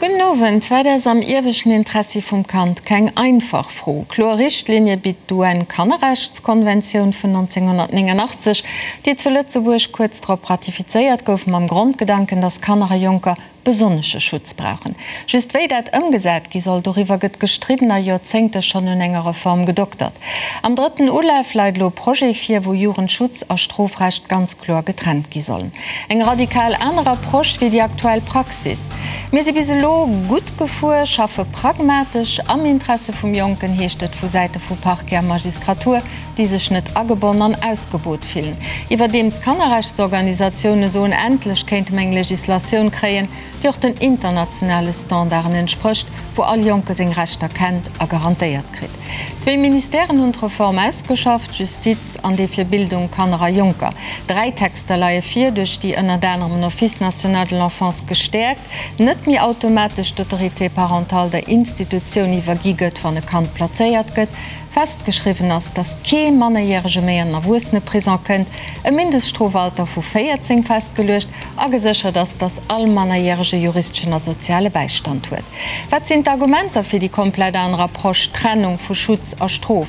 Gudden Owend. Wat ass am ieweschten Interessi vum Kand? Keng einfach Fro. Kloer Richtlinie bitt d'UN-Kannerrechtskonventioun vun 1989, déi zu Lëtzebuerg kuerz drop ratifizéiert gouf, mam Grondgedanken, datt Kanner a Jonker besonnesche Schutz brauchen. Just wéi dat ëmgesat gi soll, doriwwer gëtt gestridden a Joerzéngte schonn un enger Reform gedoktert. Am drëtten Ulaf leit elo e Projet vir, wou Jugendschutz a Strofrecht ganz kloer getrennt gi sollen. Eng radikal aner Approche wéi déi aktuell Praxis. Mir si bis elo gutt gefuer, schaffe pragmatesch am Interesse vum Jonken, heescht et vu Säite vu Parquet a Magistratur, déi sech net agebonn an ausgebot fillen. Iwwerdeems Kannerrechtsorganisatioune soen, endlech kéinte mer eng Legislatioun kréien, déi och den internationale Standarden entsprécht, wou all Jonke seng Rechter kennt a garantéiert kritt. Zwéi Ministèren hunn d'Reform ausgeschafft, Justiz an dee fir Bildung, Kanner a Jonker. Dräi Texter leie vir, duerch déi ënnert anerem den Office national de l'enfance gestäerkt, net méi automatesch d'Autorité parentale der Institutioun iwwergi gëtt, wann e Kand plazéiert gëtt, Festgeschriwwen ass, dass kee Mannerjärege méi an den Erwuesseneprison kënnt, e Mindeststrofalter vu 14 festgeluecht a geséchert ass, dass all Mannerjärege juristeschen a soziale Bäistand huet. Wat sinn d'Argumenter fir déi komplett aner Approche, Trennung vu Schutz a Strof?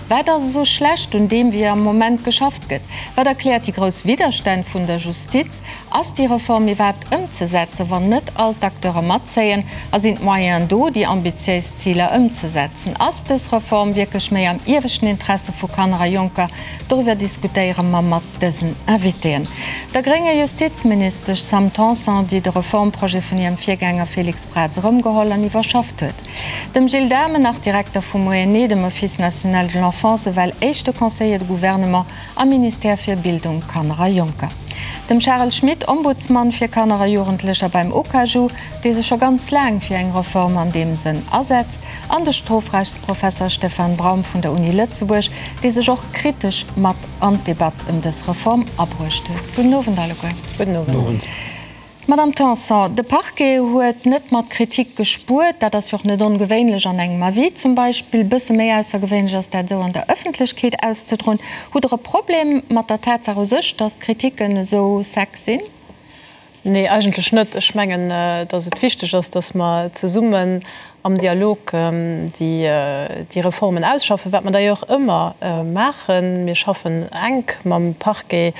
Wat ass esou schlecht un deem, wéi am Moment geschafft gëtt? Wat erkläert déi grouss Widderstänn vun der Justiz? Ass déi Reform iwwerhaapt ëmzesetzen, wann net all d'Acteure matzéien? A sinn d'Moyenen do, déi ambitiéis Ziler ëmzesetzen? Ass dës Reform wierklech méi am ieweschten Interesse vu Kanner a Jonker? Doriwwer diskutéiere mer mat dësen Invitéen, der grénger Justizministesch Sam Tanson, déi de Reformprojet vun hirem Virgänger Félix Braz erëmgeholl an iwwerschafft huet, dem Gilles Dhamen, nach Direkter vum ONE, dem Office national de l'enfance, ewell éischte Conseiller de gouvernement am Ministère fir Bildung, Kanner a Jonker, dem Charel Schmit, Ombudsmann fir Kanner a Jugendlecher beim OKAJU, dee sech scho ganz laang fir eng Reform an deem Sënn asetzt, an de Strofrechtsprofesser Stefan Braum vun der Uni Lëtzebuerg, dee sech och kritesch mat an d'Debatt ëm dës Reform abruecht huet. Gudden Owend alleguer. Gudden Owend. Madamm Tanson, de Parquet huet net mat Kritik gespuert. Dat ass jo och net ongewéinlech an engem Avis zum Beispill. Bësse méi aussergewéinlech ass dat esou an der Ëffentlechkeet auszedroen. Hutt Der e Problem mat der Tatsaach u sech, datt d'Kritiken esou sec sinn? Nee, eigentlech net. Ech mengen, datt et wichteg ass, datt mer zesummen am Dialog déi Reformen ausschaffen, wat mer d'ailleurs ëmmer maachen. Mir schaffen enk mam Parquet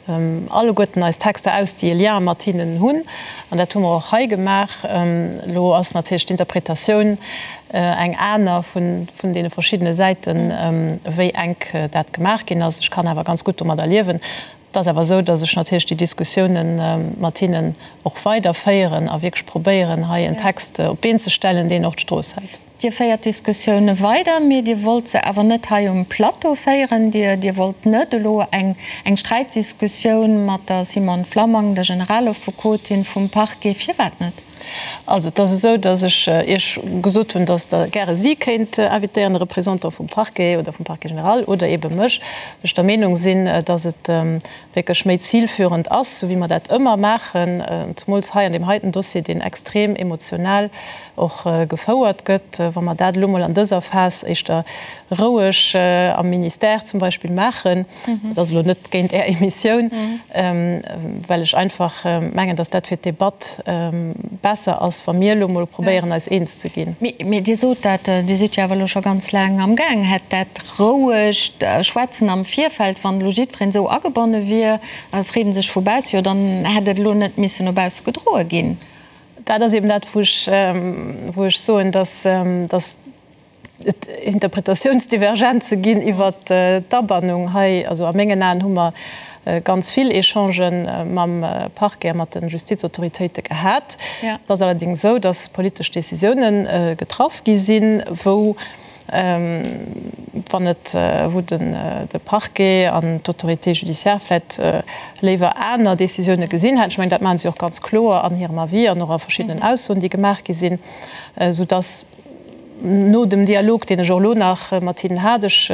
alleguerten eis Texter aus, déi e Lien mat hinnen hunn. An dat hu mer och hei gemaach. Elo ass natierlech d'Interpretatioun eng aner vun deene verschiddene Säiten, wéi enk dat gemaach ginn ass. Ech kann awer ganz gutt domadder liewen. Et ass awer esou, datt ech natierlech déi Diskussiounen mat hinnen och weiderféieren a wierklech probéieren, hei en Text op d'Been ze stellen, deen och d'Strooss hält. Dir féiert d'Diskussioune weider, mee Dir wollt se awer net hei um Plateau féieren. Dir, Dir wollt net elo eng, eng Sträitdiskussioun mat der Simone Flammang, der Generalaffekotin vum Parquet. Firwat net? Also, et ass esou, datt ech Iech gesot hunn, datt Der gäre si kéint invitéieren, e Représentant vum Parquet oder vum Parquet général oder eebe mech, well ech der Meenung sinn, datt et wierklech méi zilführend ass, esou wéi mer dat ëmmer maachen, zemools hei an deem heiten Dossier, deen extrem emotional och gefouert gëtt, wa mer dat elo mol an dëser Phas éischter roueg am Ministère zum Beispill maachen. Dat ass elo net géint Är Emissioun, well ech einfach mengen, dass dat fir d'Debatt besser ass, wa mir elo mol probéieren, eis eens ze ginn. Mee Dir sot dat, Dir sidd jo awer elo scho ganz laang amgaang. Hätt dat rouegt Schwätzen am Virfeld, wann elo jiddwereen esou agebonne wier, freet e sech vu bausse, jo dann hätt et elo net missen no bausse gedroe ginn. Dat ass eben dat, wou ech, wou ech soen, dass, dass et Interpretatiounsdivergenze ginn iwwert d'Abannung hei. Also a mengen Aen hu mer ganz vill Echangen mam Parquet a mat de Justizautoritéite gehat. Et ass allerdéngs esou, dass politesch Décisiounen getraff gi sinn, wou wann et, wou den de Parquet an d'Autorité judiciaire vläicht léiwer aner Décisioune gesinn hätten. Ech mengen, dat maache si och ganz kloer an hirem Avis an och a verschiddenen Aussoen, déi gemaach gi sinn, soudass no dem Dialog, deen ech och elo nach mat hinnen hat, ech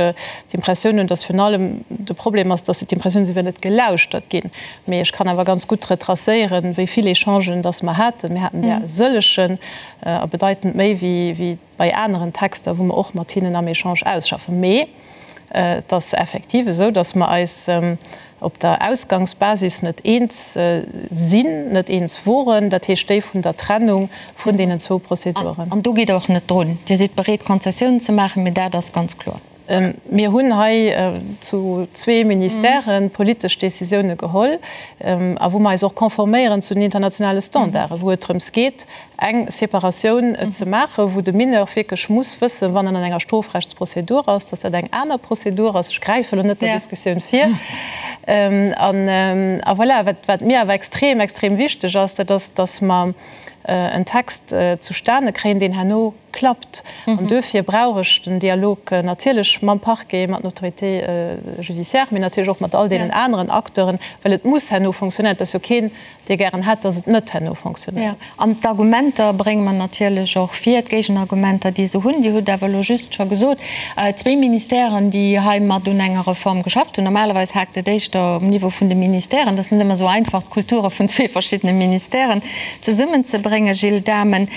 d'Impressioun hunn, dass virun allem de Problem ass, dass se d'Impressioun hunn, se wier net gelauschtert ginn. Mee ech kann awer ganz gutt retracéieren, wéi vill Echangen dass mer haten. Mir haten där e sëllegen a bedeitend méi wéi bei aneren Texter, wou mer och mat hinnen am Echange ausschaffen. Mee. Et ass effektiv esou, datt mer eis op der Ausgangsbasis net eens sinn, net eens woren, dat heescht déi vun der Trennung vun deenen zwou Prozeduren. An do gitt Der och net drun. Dir sidd bereet, Konzessiounen ze maachen, mee dat ass ganz kloer. Mir hunn hei zu zwee Ministèren politesch Décisioune geholl a wou mer eis och conforméieren zu den internationale Standarden, wou et drëms geet, eng Separatioun ze maachen, wou de Mineur wierklech muss wëssen, wann en an enger Strofrechtsprozedur ass, dass dat eng aner Prozedur ass. Ech gräife elo net der Diskussioun vir. A voilà, wat mir awer extrem, extrem wichteg ass, dat ass, dass mer en Text zustane kréien, deen herno klappt. An duerfir brauch ech den Dialog natierlech mam Parquet, mat den Autorités judiciaires, mee natierlech och mat all deenen aneren Acteuren, well et muss herno fonctionnéieren. Et ass jo keen, dee gären hätt, dass et net herno fonctionnéiert. Jo, an d'Argumenter brénge mer natierlech och vir, d'Géigenargumenter, déi se hunn. Dir hutt awer elo just scho gesot, zwee Ministèren, déi hei mat un enger Reform geschafft hunn. Normalerweis haakt et éischter um Niveau vun de Ministèren. Et ass net ëmmer esou einfach, d'Kulture vun zwee verschiddene Ministèren zesummenzebréngen. Gilles Dahmen,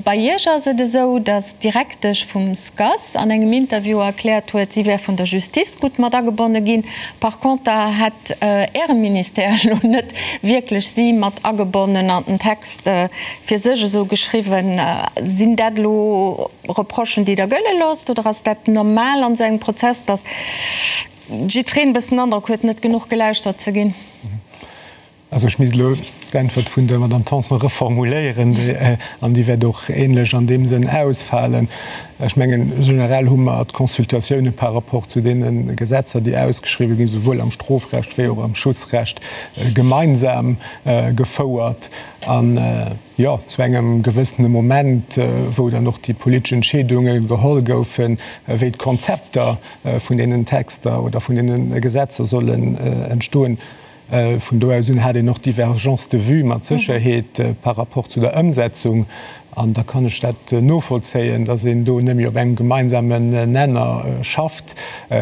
bei Iech ass et esou, datt d'Direktesch vum SCAS an engem Interview erkläert huet, si wär vun der Justice gutt mat agebonne ginn. Par conter hätt Äre Ministère elo net wierklech si mat agebonnen an den Text fir sech esou geschriwwen. Sinn dat elo Reprochen, déi Der gëlle loosst, oder ass dat normal an esou engem Prozess, datt jiddwereen e bëssen den Androck huet, net genuch gelauschtert ze ginn? Also ech misst elo d'Äntwert vun der Madame Tanson reformuléieren, an déi wäert och ähnlech an deem Sënn ausfalen. Ech mengen, generell hu mer d'Consultatioune par rapport zu deene Gesetzer, déi ausgeschriwwen ginn, souwuel am Strofrecht wéi och am Schutzrecht, gemeinsam gefouert. An, jo, zu engem gewëssene Moment, wou dann och déi politesch Entscheedunge geholl goufen, wéi d'Konzepter vun deenen Texter oder vun deene Gesetzer sollen entstoen, Vun do aus un hat een och Divergences de vues mat Sécherheet par rapport zu der Ëmsetzung. An da kann ech dat novollzéien, datt een do net méi op engem gemeinsamen Nenner schafft.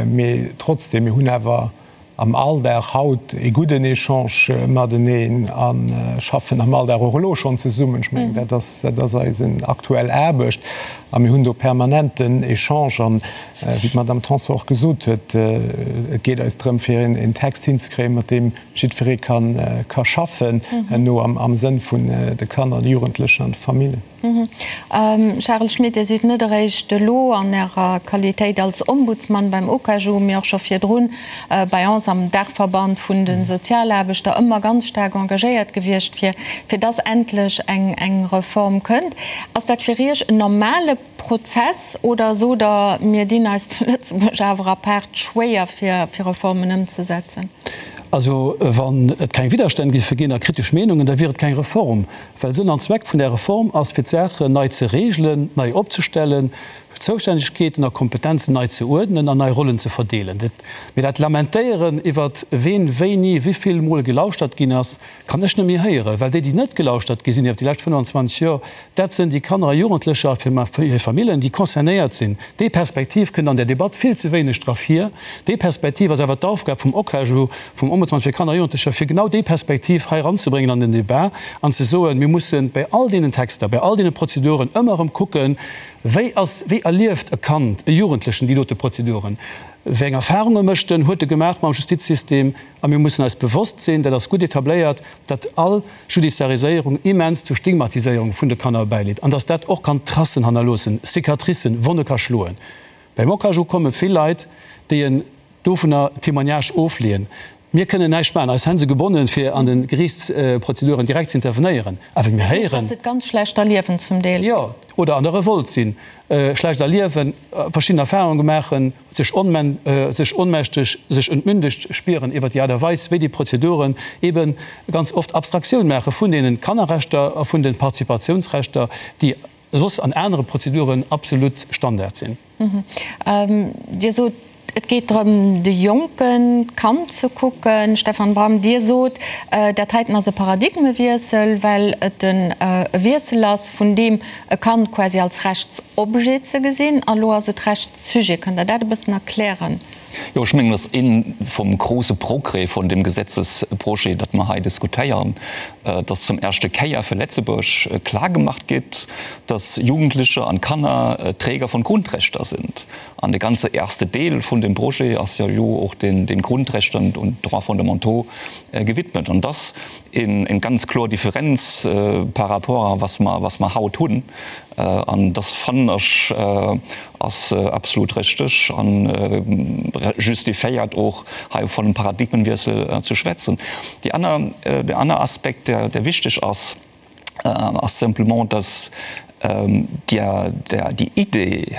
Mee trotzdem, mir hunn awer am Alldag haut ee gudden Echange mateneen a schaffen am Alldag och elo schonn zesummen. Ech mengen, dat ass, dat ass eisen aktuell Aarbecht. A mir hunn do permanenten Echange. An wéi d'Madame Tanson och gesot huet, et geet eis drëm, fir een Text hinzekréien, mat deem jiddweree ka schaffen herno am Sënn vun de Kanner, de Jugendlechen an de Familljen. Charel Schmit, Dir sidd net eréischt elo an Ärer Qualitéit als Ombudsman beim OKAJU, mee och scho virdrun bei ons am Daachverband vun de Sozialaarbechter ëmmer ganz staark engagéiert gewiescht, fir fir dass endlech eng Reform kënnt. Ass dat fir Iech en normale Prozess oder sot Der, mir dinn eis zu Lëtzebuerg awer apaart schwéier fir Reformen ëmzesetzen? Also wann et keng Widderstänn géife ginn a kritesch Meenungen, da wier et keng Reform. Well Sënn an Zweck vun där Reform ass, fir d'Saachen nei ze regelen, nei opzestellen, Zoustännegkeeten a Kompetenzen nei ze uerdnen an nei Rollen ze verdeelen. Mee dat Lamentéieren iwwert ween wéini wéivill mol gelauschtert ginn ass, Kann ech net méi héieren, well déi, déi net gelauschtert gi sinn iwwer déi lescht 25 Joer, dat sënn déi Kanner a Jugendlecher a hir Famillen, déi concernéiert sinn. Déi Perspektiv kënnt an där Debatt vill ze wéineg dra vir. Déi Perspektiv ass awer d'Aufgab vum OKAJU, vum Ombudsmann fir Kanner a Jugendlecher, fir genau déi Perspektiv hei eranzebréngen an den Débat an ze soen, mir mussen bei all deenen Texter, bei all deene Prozeduren ëmmer erëm kucken, wéi ass, wéi erlieft e Kand, e Jugendlechen déi dote Prozeduren, wéi eng Erfahrunge mécht en, huet e gemaach mam Justizsystem. A mir mussen eis bewosst sinn, dat ass gutt etabléiert, datt all Judiciariséierung immens zu Stigmatiséierung vun de Kanner bäileet an datt dat och kann Tracen hannerloossen, Cicatricen, Wonne ka schloen. Beim OKAJU komme vill Leit, déi en dovunner Témoignage ofleeën. Mir kënnen näischt maachen, eis Hänn si gebonnen, fir an de Geriichtsprozeduren direkt ze intervenéieren. Awer mir héieren. Dat heescht, datt se et ganz schlecht erliewen zum Deel. Jo, oder an der Revolt sinn, schlecht erliewen, verschidden Erfahrunge maachen. sech sech onmächteg, sech entmündegt spieren iwwert déi Aart a Weis, wéi déi Prozeduren eebe ganz oft Abstraktioun maache vun deene Kannerrechter a vun de Participatiounsrechter, déi soss an anere Prozeduren absolut Standard sinn. Dir sot, et geet drëm, de Jonken, d'Kand ze kucken. Stefan Bram, Dir sot, dat heiten ass e Paradigmewiessel, well et e Wiessel ass vun deem e Kand quasi als Rechtsobjet ze gesinn, a lo ass et Rechtsujet. Kënnt Der dat e bëssen erklären? Jo, ech mengen, dat ass ee vum grouse Progrès vun deem Gesetzesprojet, dat mer hei diskutéieren. Dass zum erschte Kéier fir Letzebuerg klar gemacht gétt, dass Jugendlicher an Kanner Träger von Grundrechter sind. An de ganze erste Deel vun dem Projet ass jo elo och den Grundrechter und Droits fondamentaux gewidmet. An dass eng ganz kloer Differenz par rapport a was mer, was mer haut hunn. An dass fannen ech ass absolut richteg an justifiéiert och hei vun einem Paradigmenwiessel ze schwätzen. Déi aner, deen aner Aspekt, der, der wichteg ass, ass simplement, dass déi Idee,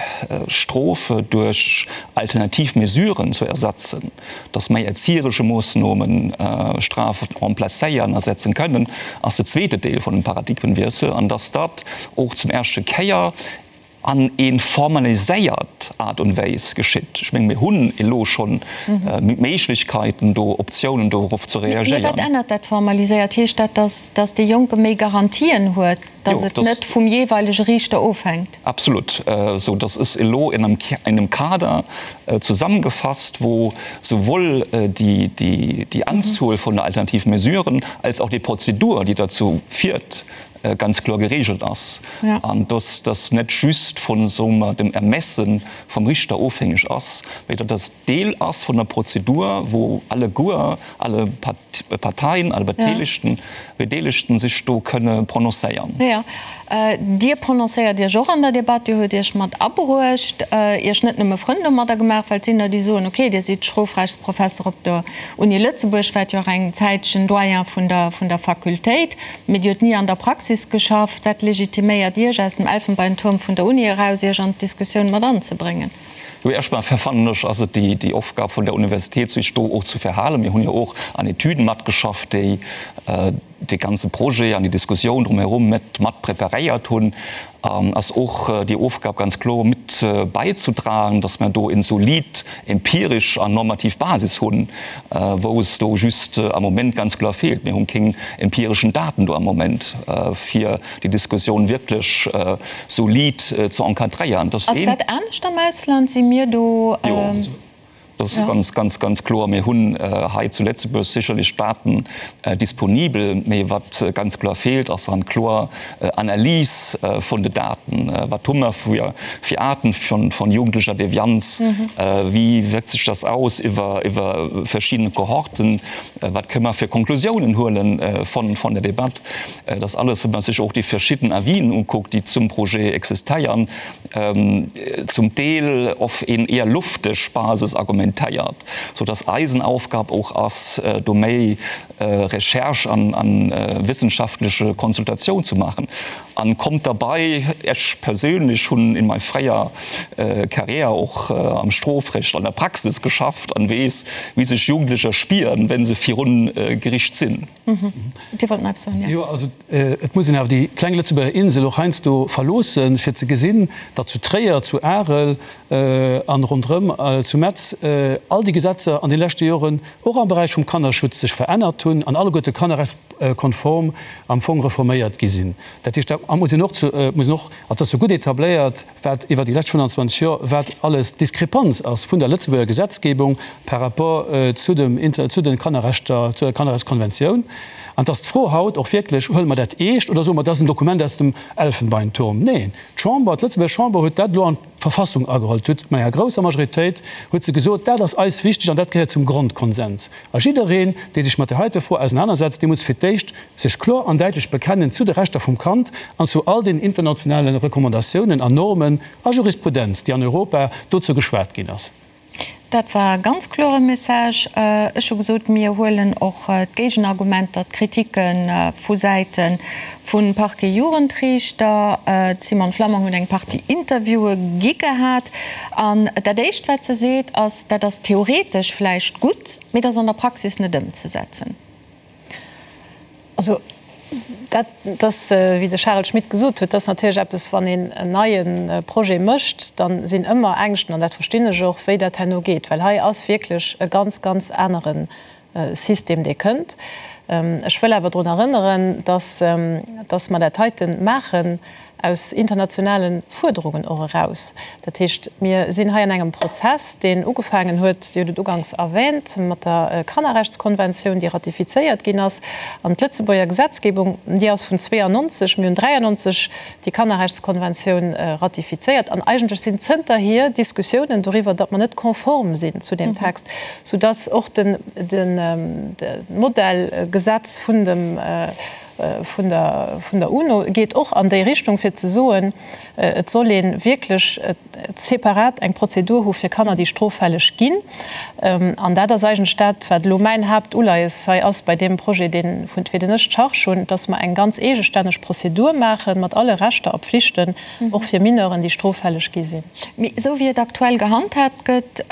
Strofe duerch alternativ Mesuren zu ersetzen, dass méi erzieheresche Moossnomen Strafe remplacéieren, ersetzen kënnen, ass de zweete Deel vun dem Paradigmenwiessel, an dass dat och zum erschte Kéier an ee formaliséiert Aart und Wéis geschitt. Ech menge mir hunn elo schonn Méiglechkeiten do, Optiounen dorof ze reagéieren. Mee wat ännert dat formaliséiert? Heescht dat, dass dee Jonke méi Garantien huet, dass et net vum jeeweilege Riichter ofhänkt? Absolut. Esou dass es elo in engem Kader zusammengefasst, wou souwuel déi Anzuel vun der alternativen Mesuren als och déi Prozedur, déi derzou fiert, ganz kloer geregelt ass an dass das net just vun, soe mer, dem Ermesse vum Richter ofhängeg ass, mä datt das Deel ass vun der Prozedur, wou alleguer alle Parteien, alle Beteelegten, Bedeelegten sech do kënne prononcéieren. Jo, Dir prononcéiert Iech och an der Debatt. Dir hutt Iech mat abruecht, Iech net nëmme Frënn domadder gemaach, well et sinn der, déi soen, okay, Dir sidd Strofrechtsprofesser op der Uni Lëtzebuerg, waart jo och eng Zäitchen Doyen vun der, vun der Fakultéit. Mee Dir hutt ni an der Praxis geschafft. Wat legitiméiert Iech, aus dem Elfenbeinturm vun der Uni eraus Iech an d'Diskussioun mat anzebréngen? Jo, erstmal fannen ech, ass et déi Aufgab vun der Universitéit, sech do och ze verhalen. Mir hunn jo och an Etüden matgeschafft, déi dee ganze Projet an déi Diskussioun drumherum mat mat preparéiert hunn. Ass och déi Aufgab ganz kloer mit beizutragen, dass mer do en solid empirisch an normativ Basis hunn, wou es do just am Moment ganz kloer feelt. Mir hunn keng empirischen Daten do am Moment, fir déi Diskussioun wierklech solid ze encadréieren. Ass dat anescht am Ausland? Si mir do. Jo. Dat ass ganz, ganz, ganz kloer. Mir hunn hei zu Lëtzebuerg sécherlech Daten disponibel, mee wat ganz kloer feelt, ass eng kloer Analys vun de Daten. Wat hu mer fir Aarten vun jugendlecher Devianz? Wéi wierkt sech dat aus iwwer verschidden Kohorten? Wat kënne mer fir Konklusiounen huele vun der Debatt? Dat ass alles, wa man sech och déi verschidden Avisen ukuckt, déi zum Projet existéieren. zum Deel of een eher lufteg Basis argumentéiert, sou dass eisen Aufgab och ass, do méi Recherche an wissenschaftleche Konsultatioun zu maachen. An kommt derbei, ech perséinlech hunn in mei fréier Carrière och am Strofrecht an der Praxis geschafft an weess, wéi sech Jugendlecher spieren, wenn se virun Gericht sinn. Dir wollt nach eppes soen, jo? Jo, also et muss een awer déi kleng Lëtzebuerger Insel och heiansdo verloossen, fir ze gesinn, datt zu Tréier, zu Arel an ronderëm zu Metz all déi Gesetzer an de leschte Joren och am Beräich vum Kannerschutz sech verännert hunn an alleguerte kannerrechtskonform am Fong reforméiert gi sinn. Dat heescht, da muss een och, muss een och, also et ass jo gutt etabléiert, wat iwwer déi lescht 25 Joer, wat alles d'Diskrepanz ass vun der Lëtzebuerger Gesetzgebung par rapport zu dem, zu de Kannerrechter, zu der Kannerrechtskonventioun. An et ass d'Fro haut och wierklech, Huele mer dat eescht oder soe mer, dat ass en Dokument aus dem Elfenbeinturm? Neen, d'Chamber, d'Lëtzebuerger Chamber huet dat elo an d'Verfassung ageholl. Huet mat enger grousser Majoritéit huet se gesot, dat ass eis wichteg an dat gehéiert zum Grondkonsens. A jiddereen, dee sech mat där heite Fro ausenanersetzt, dee muss fir d'éischt sech kloer an däitlech bekennen zu de Rechter vum Kand an zu all den internationale Recommandatiounen an Normen a Jurisprudenz, déi an Europa dozou geschwat ginn ass. Dat war e ganz klore Message. Ech hu gesot, mir huelen och d'Géigenargumenter, d'Kritike vu Säite vum Parquet Jugendriichter. D'Simone Flammang huet eng Partie Interviewe gi gehat. An dat Éischt, wat se seet, ass, dat ass theoretesch vläicht gutt, mee dat ass an der Praxis net ëmzesetzen. Also dat ass, wéi de Charel Schmit gesot huet, dat ass natierlech eppes, wann een en neie Projet mécht, da sinn ëmmer Ängschten, an dat verstinn ech och, wéi dat herno geet, well hei ass wierklech e ganz, ganz anere System, dee kënnt. Ech wëll awer drun erënneren, dass, dass mer dat heite maachen. Aus internationale Fuerderungen och eraus. Dat heescht, mir sinn hei an engem Prozess, deen ugefaangen huet, Dir hutt et uganks erwähnt, mat der Kannerrechtskonventioun, déi ratifizéiert ginn ass. An d'Lëtzebuerger Gesetzgebung, déi ass vun 92, mir hunn 93 déi Kannerrechtskonventioun ratifizéiert. An eigentlech sinn zënterhier Diskussiounen doriwwer, datt mer net konform sinn zu deem Text, soudatt och de Modellgesetz vun dem, vun der vun der UNO geet och an déi Richtung, fir ze soen, et soll ee wierklech separat eng Prozedur hu fir Kanner, déi stroffälleg ginn. An dat ass eigentlech dat, wat elo mäin Haaptuleies hei ass bei deem Projet, deen, fir deen ech d'Charge hunn, dass mer eng ganz eegestänneg Prozedur maache mat alle Rechter a Pflichten, och fir Mineuren, déi stroffälleg gi sinn. Mee esou wéi et aktuell gehandhaabt gëtt,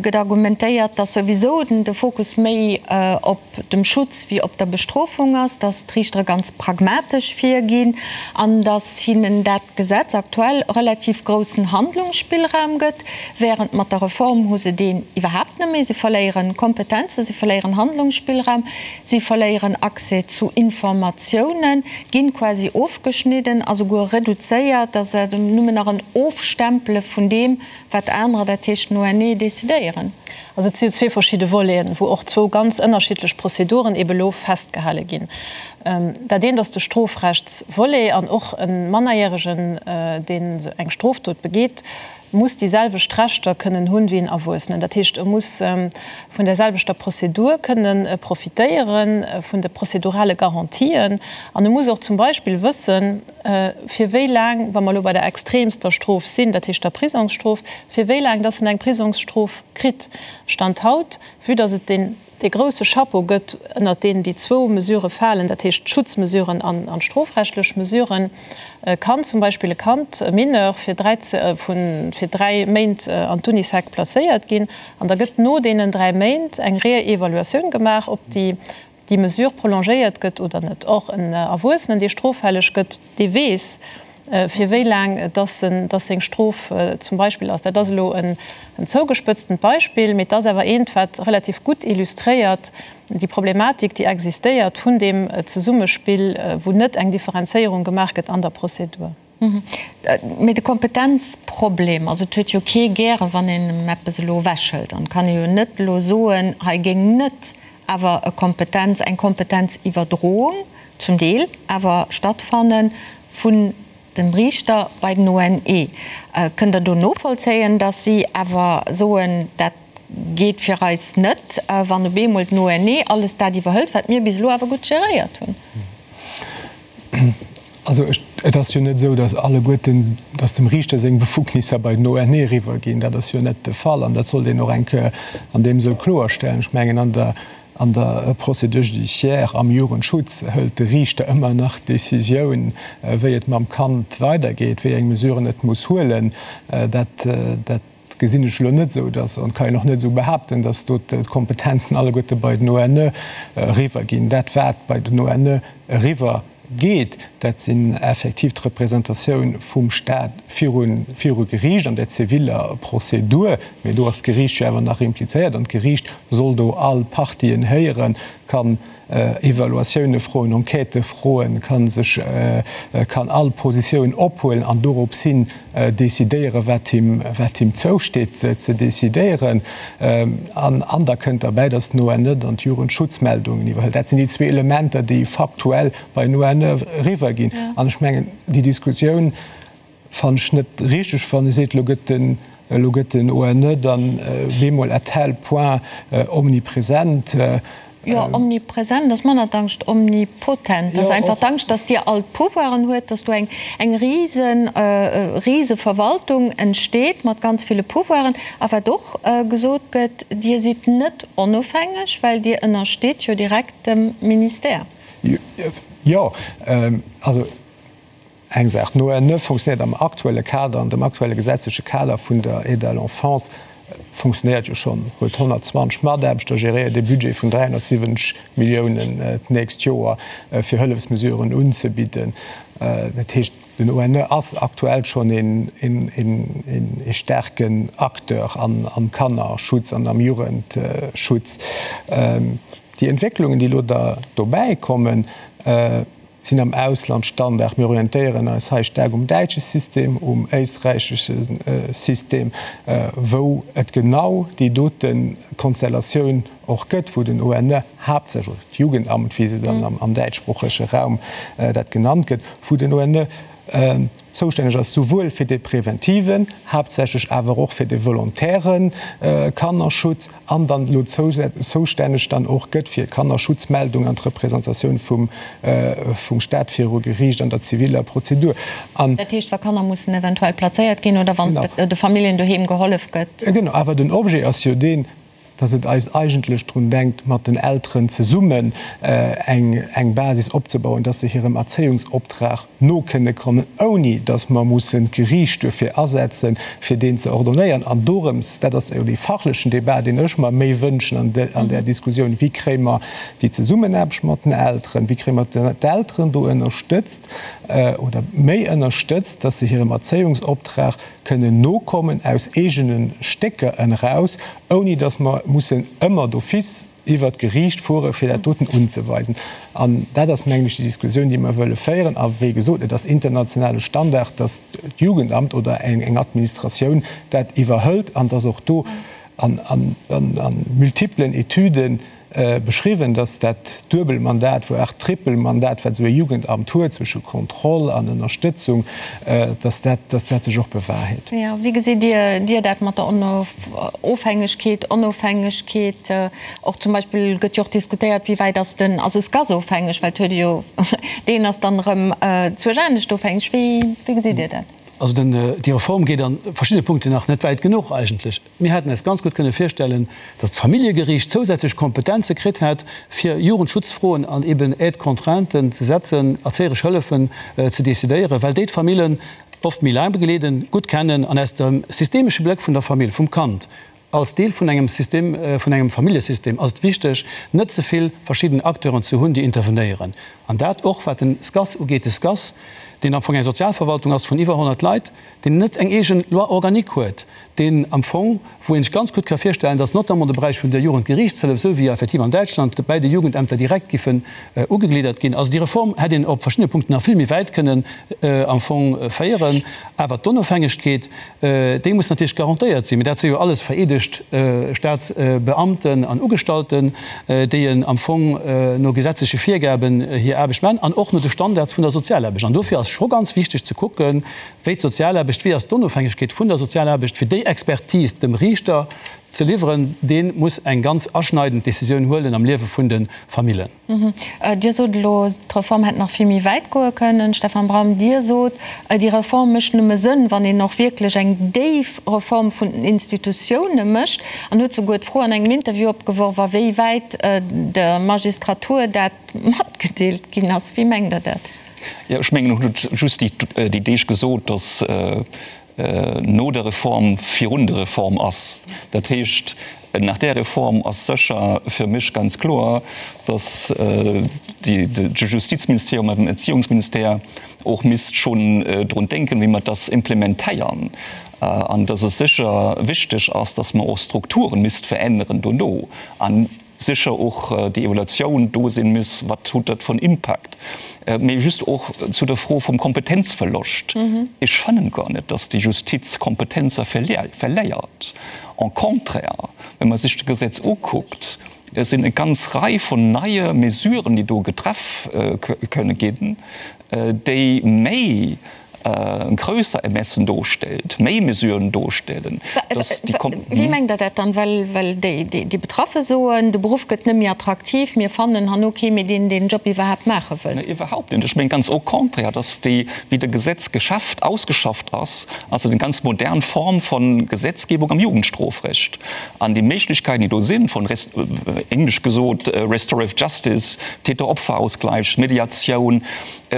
gëtt argumentéiert, dass souwisou de Fokus méi op dem Schutz wéi op der Bestrofung ass, dass d'Riichtere ganz pragmatesch virginn an dass hinnen dat Gesetz aktuell relativ groussen Handlungsspillraum gëtt, während mat der Reform hu se deen iwwerhaapt net méi. Se verléieren Kompetenzen, se verléieren Handlungsspillraum, si verléieren Accès zu Informatiounen, ginn quasi ofgeschnidden a souguer reduzéiert, dass et nëmmen nach en Ofstempele vun deem, wat anerer, dat heescht den ONE, decidéieren. Also et si jo zwee verschidde Voleten, wou och zwou ganz ënnerschiddlech Prozeduren ebe lo festgehale ginn. Dat eent ass de Strofrechtsvolet an och e Mannerjäregen, deen eng Strofdot begeet, muss déi selwecht Rechter kënnen hunn wéi en Erwuessenen. Dat heescht, e muss vun där selwechter Prozedur kënnen profitéieren, vun de prozedurale Garantien an e muss och zum Beispill wëssen, fir wéi laang, wa mer elo bei der extremster Strof sinn, dat heescht der Prisongsstrof, fir wéi laang dass en eng Prisongsstrof kritt. Stand haut, vue dass et deen dee grouse Chapeau gëtt, ënnert deen déi zwou Mesurë falen, dat heescht d'Schutzmesuren an d'strofrechtlech Mesuren, kann zum Beispill e Kand, e Mineur, fir fir dräi Méint an d'Unisec placéiert ginn an da gëtt no deenen dräi Méint eng Réévaluatioun gemaach, ob déi déi Mesure prolongéiert gëtt oder net. Och en Erwuessenen, dee stroffälleg gëtt, dee weess, fir wéi laang dass en, dass seng Strof zum Beispill ass. Dat ass elo en zougespëtztent Beispill, mee et ass awer eent, wat relativ gutt illustréiert déi Problematik, déi existéiert vun deem Zesummespill, wou net eng Differenzéierung gemaach gëtt an der Prozedur. Mee de Kompetenzproblem, also et huet jo kee gäre wann een em eppes elo ewechhëlt. An et kann ee jo net elo soen, hei géing net awer e Kompetenz, eng Kompetenziwwerdroung zum Deel awer stattfanne vun dem Riichter bei den ONE. Kënnt Der do novollzéien, datt si awer soen, dat geet fir eis net, wann op eemol den ONE alles dat iwwerhëlt, wat mir bis elo awer gutt geréiert hunn? Also et ass jo net esou, datt alleguerten, datt dem Riichter seng Befugnisser bei den ONE eriwwerginn. Dat ass jo net de Fall an dat sollt een och eng Kéier an deem Sënn kloerstellen. Ech mengen, an der, an der Procédure judiciaire am Jugendschutz hëlt de Riichter ëmmer nach d'Décisioun, wéi et mam Kand weidergeet, wéi eng Mesuren et muss huelen. Dat, dat gesinn ech elo net esou, datt, an kann een och net esou behaapten, datt do d'Kompetenzen alleguerte bei den ONE eriwwerginn. Dat, wat bei den ONE eriwwer geet, dat sinn effektiv d'Representatioun vum Stat viru viru Geriicht an der ziviller Prozedur. Mee do ass d'Geriicht jo awer nach implizéiert an d'Geriicht soll do all Partien héieren, kann Evaluatioune froen, Enquêtë froen, ka sech, kann all Positioun ophuelen an dorops hin decidéieren, wat him, wat him zousteet ze decidéieren. An, an da kënnt derbäi, datt den ONE dann d'Jugendschutzmeldungen iwwerhëlt. Dat sinn déi zwee Elementer, déi faktuell bei den ONE eriwwerginn. An ech mengen, déi Diskussioun fannen ech net richteg, wann ee seet, elo gëtt den, elo gëtt den ONE dann bemol à tel point omnipresent. Jo, omnipresent ass manner d'Angscht, omnipotent ass einfach d'Angscht, dass Dir all d'Pouvoiren huet, dass do eng eng rise rise Verwaltung entsteet mat ganz ville Pouvoiren. A wat och gesot gëtt, Dir sidd net onofhängeg, well Dir ënnersteet jo direkt dem Ministère. Jo, also Eng Saach, D'ONE fonctionnéiert am aktuelle Kader, an dem aktuelle gesetzleche Kader vun der Aide à l'enfance fonctionnéiert jo schonn, huet 120 Mataarbechter, geréiert ee Budget vun 370 Milliounen d'nächst Joer, fir Hëllefsmesuren unzebidden. Dat heescht, den ONE ass aktuell schonn ee staarken Acteur am Kannerschutz an am Jugendschutz. Déi Entwécklungen, déi elo da dobäikommen. Sinn am Ausland Standard. Mir orientéieren eis hei staark um däitsche System, um éisträichesche System, wou et genau déi dote Konstellatioun och gëtt, wou den ONE haaptsächlech, oder d'Jugendamt, wéi se dann am däitschsproochege Raum dat genannt gëtt, wou den ONE zoustänneg ass souwuel fir de preventiven, haaptsächlech awer och fir de volontäre Kannerschutz an dann elo zoustänneg dann och gëtt fir Kannerschutzmeldung an d'Representatioun vum Stat viru Geriicht an der ziviller Prozedur. An. Dat heescht, wa Kanner mussen eventuell plazéiert ginn oder wann de Familljen doheem gehollef gëtt. Genau, awer den Objet ass jo deen, dass et eis eigentlech drun denkt, mat den Elteren zesummen eng Basis opzebauen, dass se hirem Erzéiungsoptrag no kënne kommen, ouni dass mer mussen d'Geriicht duerfir asetzen, fir deen ze ordonnéieren. An dorëms, dat ass jo dee fachlechen Débat, deen ech mer méi wënschen an där Diskussioun, Wéi kréie mer déi Zesummenaarbecht mat den Elteren, wéi kréie mer d'Elteren do ënnerstëtzt oder méi ënnerstëtzt, dass se hirem Erzéiungsoptrag kënnen nokommen aus eegene Stécker eraus, ouni dass mer mussen ëmmer d'office iwwert d'Geriicht fuere fir dat doten unzeweisen. An dat ass, mengen ech, déi Diskussioun, déi mer wëlle féieren. A wéi gesot, et ass internationale Standard, dass d'Jugendamt oder eng Administratioun dat iwwerhëlt an dass och do an multiplen Etüden beschriwwen, dass dat Duebelmandat, voire Trippelmandat, wat esou e Jugendamt huet, zwësche Kontroll an Ënnerstëtzung, dass dat, dass dat sech och bewahrheet. Jo, wéi gesitt Dir, Dir dat mat der Ofhängegkeet, Onofhängegkeet? Och zum Beispill gëtt jo och diskutéiert, wéi wäit ass den, ass e SCAS ofhängeg, well et huet ee jo, deen ass dann erëm zwuesch anescht ofhängeg. Wéi, wéi gesitt Dir dat? Also den, déi Reform geet a verschiddene Punkten nach net wäit genuch eigentlech. Mir hätten eis ganz gutt kënne virstellen, datt d'Familljegeriicht zousätzlech Kompetenze kritt hätt, fir Jugendschutzfroen an eben Aide-contrainten ze setzen, erzéieresch Hëllefen ze decidéieren, well déi d'Famillen oft méi laang begleeden, gutt kennen an aus dem systemesche Bléck vun der Famill, vum Kand als Deel vun engem System, vun engem Familljesystem, ass et wichteg, net ze vill verschidden Acteuren ze hunn, déi intervenéieren. An dat och wat den SCAS ugeet. De SCAS, deen am Fong eng Sozialverwaltung ass vun iwwer 100 Leit, deen net eng eegen Loi organique huet, deen am Fong, wou ee sech ganz gutt ka virstellen, dass notamment de Beräich vun der Jugendgerichtshëllef, esou wéi effektiv an Däitschland, bäi de Jugendämter direkt giffen ugegliddert ginn. Also déi Reform hätt een op verschiddene Punkten nach vill méi wäit kënnen am Fong féieren. Awer d'Onofhängegkeet, déi muss natierlech garantéiert sinn. Mee dat si jo alles vereedegt Staatsbeamten an Ugestallten, déi am Fong no gesetzleche Virgaben hir Aarbecht maachen an och no de Standards vun der Sozialaarbecht. An dofir ass scho ganz wichteg ze kucken, wéi d'Sozialaarbecht, wéi ass d'Onofhängegkeet vun der Sozialaarbecht, fir déi Expertise dem Riichter ze liwweren, dee muss eng ganz aschneidend Décisioun huelen am Liewe vun de Famillen. Dir sot elo, d'Reform hätt nach vill méi wäit goe kënnen. Stefan Braum, Dir sot, déi Reform mécht nëmme Sënn, wann een och wierklech eng déif Reform vun den Institutioune mécht, an huet souguer d'Fro an engem Interview opgeworf, a wéi wäit der Magistratur dat matgedeelt ginn ass. Wéi mengt Der dat? Jo, ech mengen, en huet just déi Deeg gesot, datt no der Reform virun der Reform ass. Dat heescht, nach där Reform ass sécher fir mech ganz kloer, datt de Justizministerium an den Erziehungsministère och misst schonn drun denken, wéi mer dass implementéieren, an datt et sécher wichteg ass, datt mer och Strukturen misst veränneren dono. Sécher och déi Evaluatioun do sinn muss, wat hutt dat fir en Impact. Mee just och zu der Fro vum Kompetenzverloscht, Ech fannen gar net, dass déi Justiz Kompetenzer verléiert. Au contraire, wa mer sech d'Gesetz ukuckt, et sinn e ganz Rei vun neie Mesuren, déi do getreff kënne ginn, déi méi grösser Ermessen dostellt, méi Mesuren dostellen, dass déi Kom. Wéi mengt Der dat dann? Well, well déi, déi Betraffe soen, de Beruff gëtt net méi attraktiv, mir fannen herno kee méi, deen deen Job iwwerhaapt maache wëll. Nee, iwwerhaupt net. Ech mengen ganz au contraire, dass déi, wéi de Gesetz geschafft, ausgeschafft ass, ass et eng ganz modern Form von Gesetzgebung am Jugendstrofrecht. An déi Méiglechkeiten, déi do sinn, von, englesch gesot, restorative justice, Täter-Opfer-Ausgleich, Mediatioun,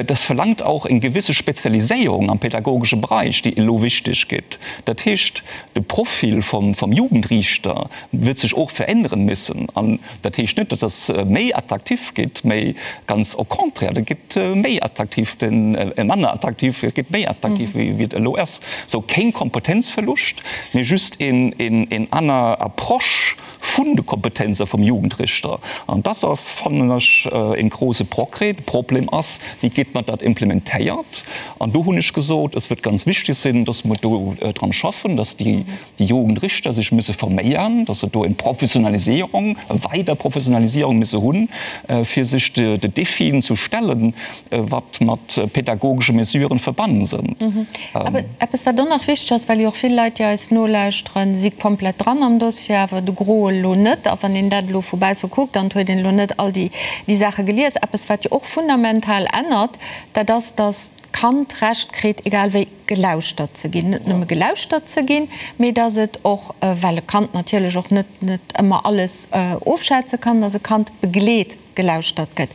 Das verlangt auch eng gewisse Spezialiséierung am pädagogesche Bereich, déi elo wichteg gétt. Dat heescht, de Profil vum Jugendriichter wird sech och veränneren müssen. An dat heescht net, dass das méi attraktiv gétt, mä ganz au contraire, dat gétt méi attraktiv, manner attraktiv, et gétt méi attraktiv, wéi et elo ass. Sou, keng Kompetenzverlust, mä just en aner Approche. vun de Kompetenze vum Jugendrichter. An dass ass, fannen ech, e grouse Progrès. De Problem ass, Wéi gétt mer dat implementéiert? An do hunn ech gesot, es wird ganz wichtig sinn, dass mer do dran schaffen, dass déi Jugendrichter sech müsse forméieren, dass se do eng Professionalisierung, e weider Professionalisierung müsse hunn, fir sech de Défien zu stellen, wat mat pädagogesche Mesuren verbannen sënn. Awer eppes, wat och nach wichteg ass, well jo och vill Leit, déi eis nolauschteren, si komplett dran am Dossier, awer de Gros elo net. A wann een dat elo vu bausse kuckt, dann huet een elo net all déi Saache gelies. Eppes, wat jo och fundamental ännert, dat ass, dass d'Kand d'Recht kritt, egal wéi, gelauschtert ze ginn. Net nëmme gelauschtert ze ginn, mee dass et och, well e Kand natierlech och net ëmmer alles ofschätze kann, dass e Kand begleet gelauschtert gëtt.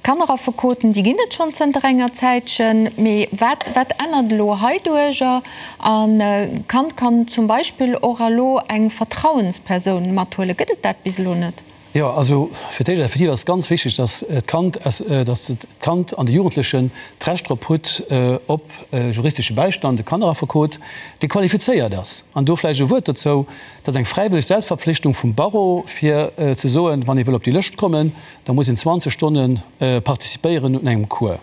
D'Kanneraffekoten, déi ginn et schonn zënter enger Zäitchen, mee wat, wat ännert elo heiduercher? An d'Kand kann zum Beispill och elo eng Vertrauenspersoun mathuelen. Gëtt et dat bis elo net? Jo, also fir d'éischt effektiv ass ganz wichteg, dass d'Kand, dass d'Kand an de Jugendlechen d'Recht drop hutt op juristesche Bäistand, e Kanneraffekot, dee qualifizéiert ass. An do vläicht e Wuert dozou, Dat ass eng fräiwëlleg Selbstverpflichtung vum Barreau, fir ze soen, wann ee wëll op déi Lëscht kommen, da muss een 20 Stonne participéieren un engem Cours.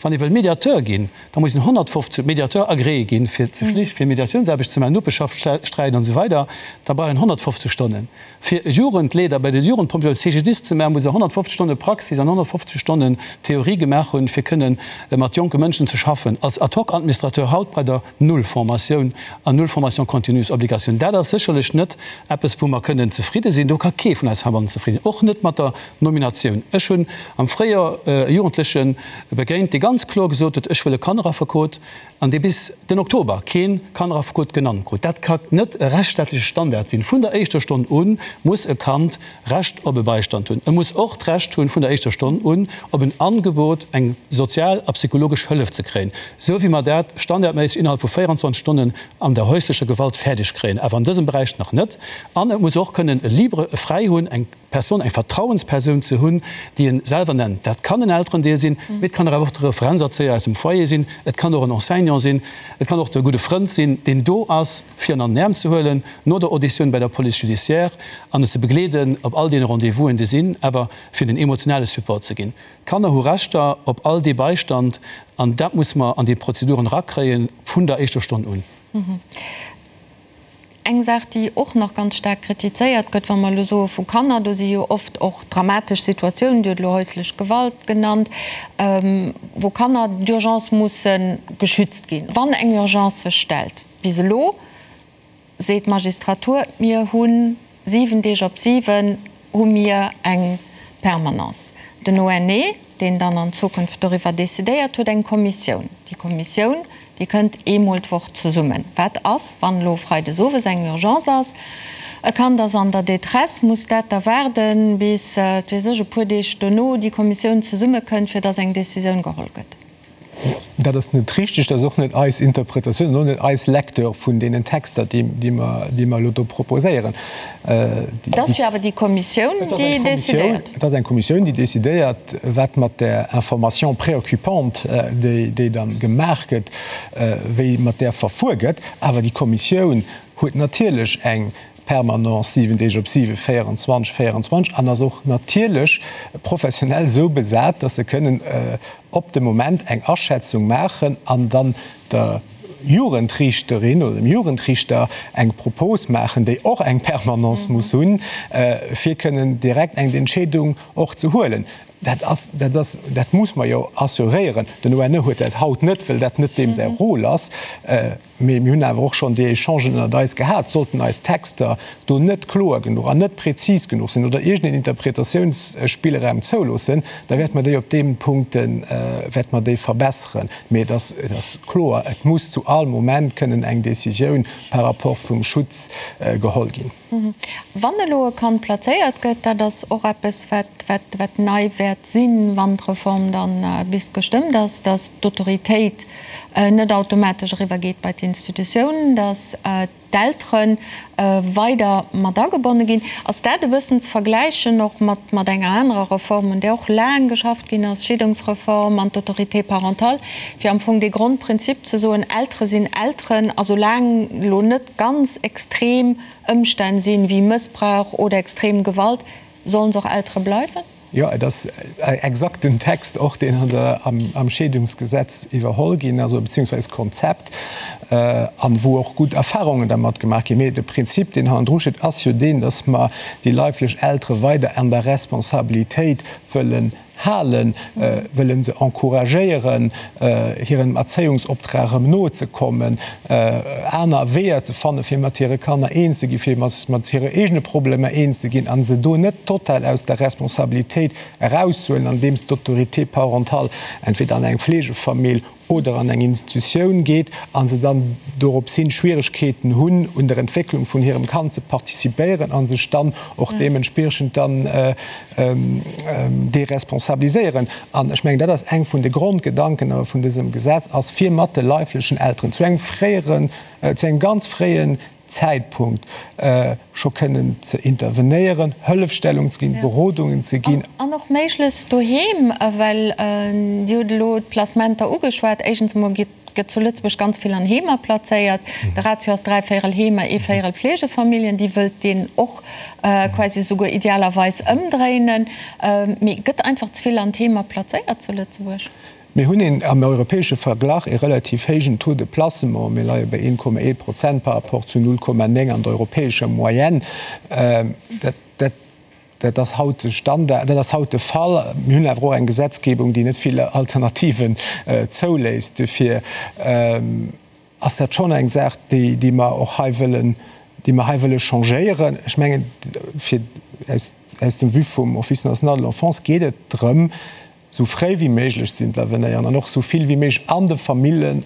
Wann ee wëll Mediateur ginn, da muss een 150, Mediateur agréé ginn, fir ze schlicht, fir Mediatiounsaarbecht ze maachen, Nopeschaftssträit an esou weider, da brauch een 150 Stonnen. Fir e Jugendleeder bei de Jugendpompjeeë, beim CGDIS ze maachen, muss e 150 Stonne Praxis an 150 Stonnen Theorie gemaach hunn, fir kënnen mat jonke Mënschen ze schaffen. Als Ad-hoc-Administrateur haut bei der Null Formatioun an null Formation continue Obligatioun. Dat ass sécherlech net eppes, wou mer kënnen zefridde sinn. Do ka kee vun eis heibannen zefridden, och net mat der Nominatioun. Ech hunn am Fréijoer e Jugendleche begéint, dee ganz kloer gesot huet, Ech wëll e Kanneraffekot, an dee bis den Oktober kee Kanneraffekot genannt krut. Dat ka net e rechtsstaatleche Standard sinn. Vun der éischter Stonn u muss e Kand Recht op e Beistand hunn. E muss och d'Recht hunn, vun der éischter Stonn un op en Angebot, eng sozial a psychologesch Hëllef ze kréien, esou wéi mer dat standardméisseg innerhalb vu 24 Stonnen an der häuslecher Gewalt fäerdeg kréien, awer an dësem Beräich nach net. An et muss och kënnen e libre, e fräi hunn, eng Persoun, eng Vertrauenspersoun ze hunn, déi en selwer nennt. Dat kann en Elterendeel sinn, mee et kann awer och de Referenzerzéier aus dem Foyer sinn, et kann och en Enseignant sinn, et kann och de gudde Frënd sinn, deen do ass, fir en an den Äerm ze huelen no der Auditioun bei der Police judiciaire an en ze begleeden op all deene Rendez-vousen, déi sinn, awer fir den emotionale Support ze ginn. D'Kanner hu Rechter op all dee Beistand an dat muss mer an déi Prozeduren erakréie vun der éischter Stonn un. Eng Saach, déi och nach ganz staark kritizéiert gëtt, wa mer elo soe vu Kanner, do si jo oft och dramatesch Situatiounen, Dir hutt elo häuslech Gewalt genannt, wou Kanner d'urgence musse geschützt ginn, wann eng Urgence sech stellt. Bis elo seet d'Magistratur, mir hu 7 Deeg op 7 hu mir eng Permanence. Den ONE, deen dann an Zukunft doriwwer decidéiert, huet eng Kommissioun. Déi Kommissioun, déi kënnt eemol d'Woch zesummen. Wat ass, wann elo freides owes eng Urgence ass, e Kand ass an der Détresse, muss dat da waarden, bis, wat weess ech, e puer Deeg dono déi Kommissioun zesummekënnt, fir datt eng Decisioun geholl gëtt? Dat ass net richtig, dat ass och net eis Interpretatioun an och net eis Lecture vun deenen Texter, déi mer elo do proposéieren. Et ass jo awer déi Kommissioun, déi decidéiert. Et ass eng Kommissioun, déi decidéiert, wat mat där Information préoccupante, déi da gemaach gëtt, wéi mat där verfuer gëtt. Awer déi Kommissioun huet natierlech eng Permanence 7 Deeg op 7, 24, 24 an ass och natierlech professionell esou besat, dass se kënnen op de Moment eng Aschätzung maachen an dann der Jugendriichterin oder dem Jugendriichter eng Propos maachen, déi och eng Permanence muss hunn, fir kënnen direkt eng Entscheedung och ze huelen. Dat ass, dat ass, dat muss mer jo assuréieren. Den ONE huet dat haut net, well dat net deem säi Rôle ass. Mee mir hunn awer och schonn déi Echangen ënnert eis gehat. Sollten eis Texter do net kloer genuch an net prezis genuch sinn oder iergendeen Interpretatiounsspillraum zouloossen, da wäerte mer déi op deem Punkt wäerte mer déi verbesseren. Mee et ass, et ass kloer, et muss zu all Moment kënnen eng Décisioun par rapport vum Schutz geholl ginn. Wann elo e Kand plazéiert gëtt, dat ass och eppes, wat, wat, wat nei wäert sinn, wann d'Reform dann bis gestëmmt ass, dass d'Autoritéit net automatesch eriwwergeet bei d'Instanz. Institutioun, datt d'Eltere weider mat agebonne ginn. Ass dat e bëssen ze vergläichen och mat mat enger anerer Reform, un där och laang geschafft ginn ass, d'Scheedungsreform an d'Autorité parentale, fir am Fong dee Grondprinzip ze soen, Eltere sinn Elteren a soulaang elo net ganz extrem Ëmstänn sinn, wéi Mëssbrauch oder extrem Gewalt, sollen se och Eltere bleiwen? Jo, et ass exakt den Text och, deen an der, am Scheedungsgesetz iwwerholl ginn ass, oder beziehungsweise d'Konzept, an wou och gutt Erfahrungen dermat gemaach ginn. Mee de Prinzip, deen hannendru steet, ass jo deen, dass mer déi leiflech Eltere weider an der Responsabilitéit wëllen halen, wëlle se encouragéieren, hirem Erzéiungsoptrag erëm nozekommen, aner Weeër ze fannen, fir mat hire Kanner eens ze ginn, fir mat hire eegene Problemer eens ze ginn a se do net total aus der Responsabilitéit erauszehuelen, andeems d'Autorité parentale entweder an eng Fleegefamill oder an eng Institutioun geet a se dann dorops hin Schwieregkeeten hunn, un der Entwécklung vun hirem Kand ze participéieren a sech dann och deementspriechend dann deresponsabiliséieren. An ech mengen, dat ass eng vun de Grondgedanken awer vun dësem Gesetz, ass fir mat de leiflechen Elteren zu engem fréieren, zu engem ganz fréien Zäitpunkt scho kënnen ze intervenéieren, Hëllefstellung ze ginn, Berodungen ze ginn. An och méiglechst doheem, well Dir hutt elo d'Placementer ugeschwat. Éischtens emol gëtt zu Lëtzebuerg ganz vill an Heemer plazéiert. De Ratio ass dräivéierel Heemer, ee Véierel Fleegefamilljen. Déi wëllt deen och quasi esouguer idealerweis ëmdréinen. Mee gëtt einfach ze vill an d'Heemer plazéiert zu Lëtzebuerg? Mir hunn een am europäesche Verglach ee relativ héijen Taux de placement. Mir leie bei 1,1 Prozent par rapport zu 0,9 an der europäescher Moyenne. Dat, dat ass haut de Standard, dat ass haut de Fall. Mir hunn awer och eng Gesetzgebung, déi net vill Alternativen zouléisst. Dofir ass dat schonn eng Saach, déi, déi mer och hei wëllen, déi mer hei wëlle changéieren. Ech mengen, fir aus, aus dem Vue vum Office national de l'enfance geet et drëm, sou fréi wéi méiglech ze intervenéieren an och sou vill wéi méiglech an de Famillen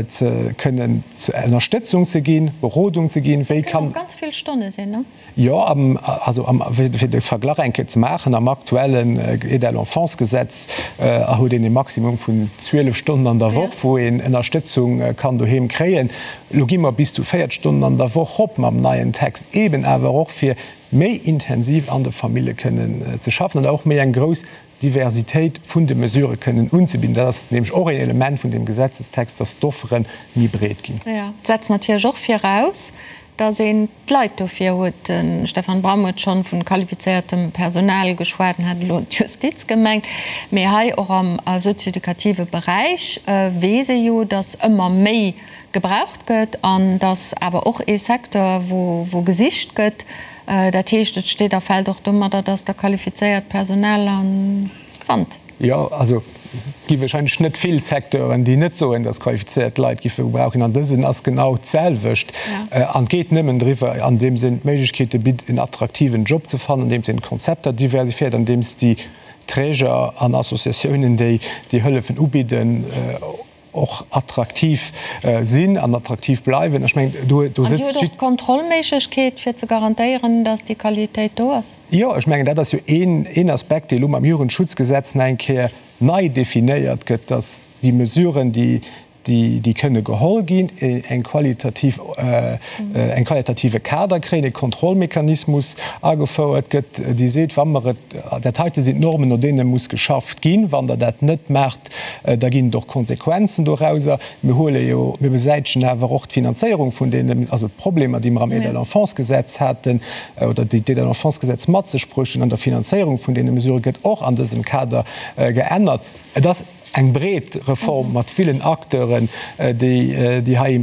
ze kënnen Ënnerstëtzung ze ginn, Berodung ze ginn, wéi kann. Dat kënnen och ganz vill Stonne sinn, ne? Jo, am, also am, fir de Verglach eng Kéier ze maachen, am aktuellen Aide à l'enfance-Gesetz huet een e Maximum vun 12 Stonnen an der Woch, wou een Ënnerstëtzung kann doheem kréien. Elo gi mer bis zu 40 Stonnen an der Woch rop mam neien Text, eeben awer och fir méi intensiv an de Famille kënnen ze schaffen an och méi eng grouss Diversitéit vun de Mesurë kënnen unzebidden. Dat ass nämlech och een Element vun deem Gesetzestext, dass d'Offere méi breet ginn. Jo, et setzt natierlech och viraus, dass een d'Leit dofir huet. De Stefan Bram huet schonn vu qualifizéiertem Personal geschwat en hat elo d'Justiz gemengt. Mee hei och am sozioeducative Beräich weess ee jo, dass ëmmer méi gebraucht gëtt an dass awer och ee Secteur, wou gesicht gëtt. Dat heescht, et steet a fält och domadder, dass Der qualifizéiert Personal fannt. Jo, also et gi wahrscheinlech net vill Secteuren, déi net soen, dass qualifizéiert Leit giffe gebraucht ginn. An dësen ass genau d'selwecht. An et geet nëmmen driwwer, andeems een d'Méiglechkeete bitt, en attraktiven Job ze fannen, andeems een d'Konzepter diversifiéiert, andeems déi Träger an Associatiounen, déi déi Hëllefen ubidden, och attraktiv sinn an attraktiv bleiwen. Ech mengen, do do sëtzt. An Dir hutt och d'Kontrollméiglechkeet, fir ze garantéieren, datt déi Qualitéit do ass? Jo, ech mengen, dat ass jo een, een Aspekt, dee elo mam Jugendschutzgesetz nach eng Kéier nei definéiert gëtt, datt déi Mesuren, déi, déi, déi kënne geholl ginn, eng qualitativ, eng qualitative Kader kréien, e Kontrollmechanismus agefouert gëtt, dee seet, wa mer et, dat heite sinn d'Normen, no deene muss geschafft ginn, wann Der dat net maacht, Da ginn et och Konsequenzen dorauser. Mir huele jo, mir besäitegen awer och d'Finanzéierung vun deenen, also d'Problemer, déi mer am Aide à l'enfance-Gesetz haten oder déi d'Aide à l'enfance-Gesetz mat sech bruecht hunn an der Finanzéierung vun deene Mesurë gëtt och an dësem Kader geännert. Et ass eng breet Reform mat villen Acteuren, déi déi hei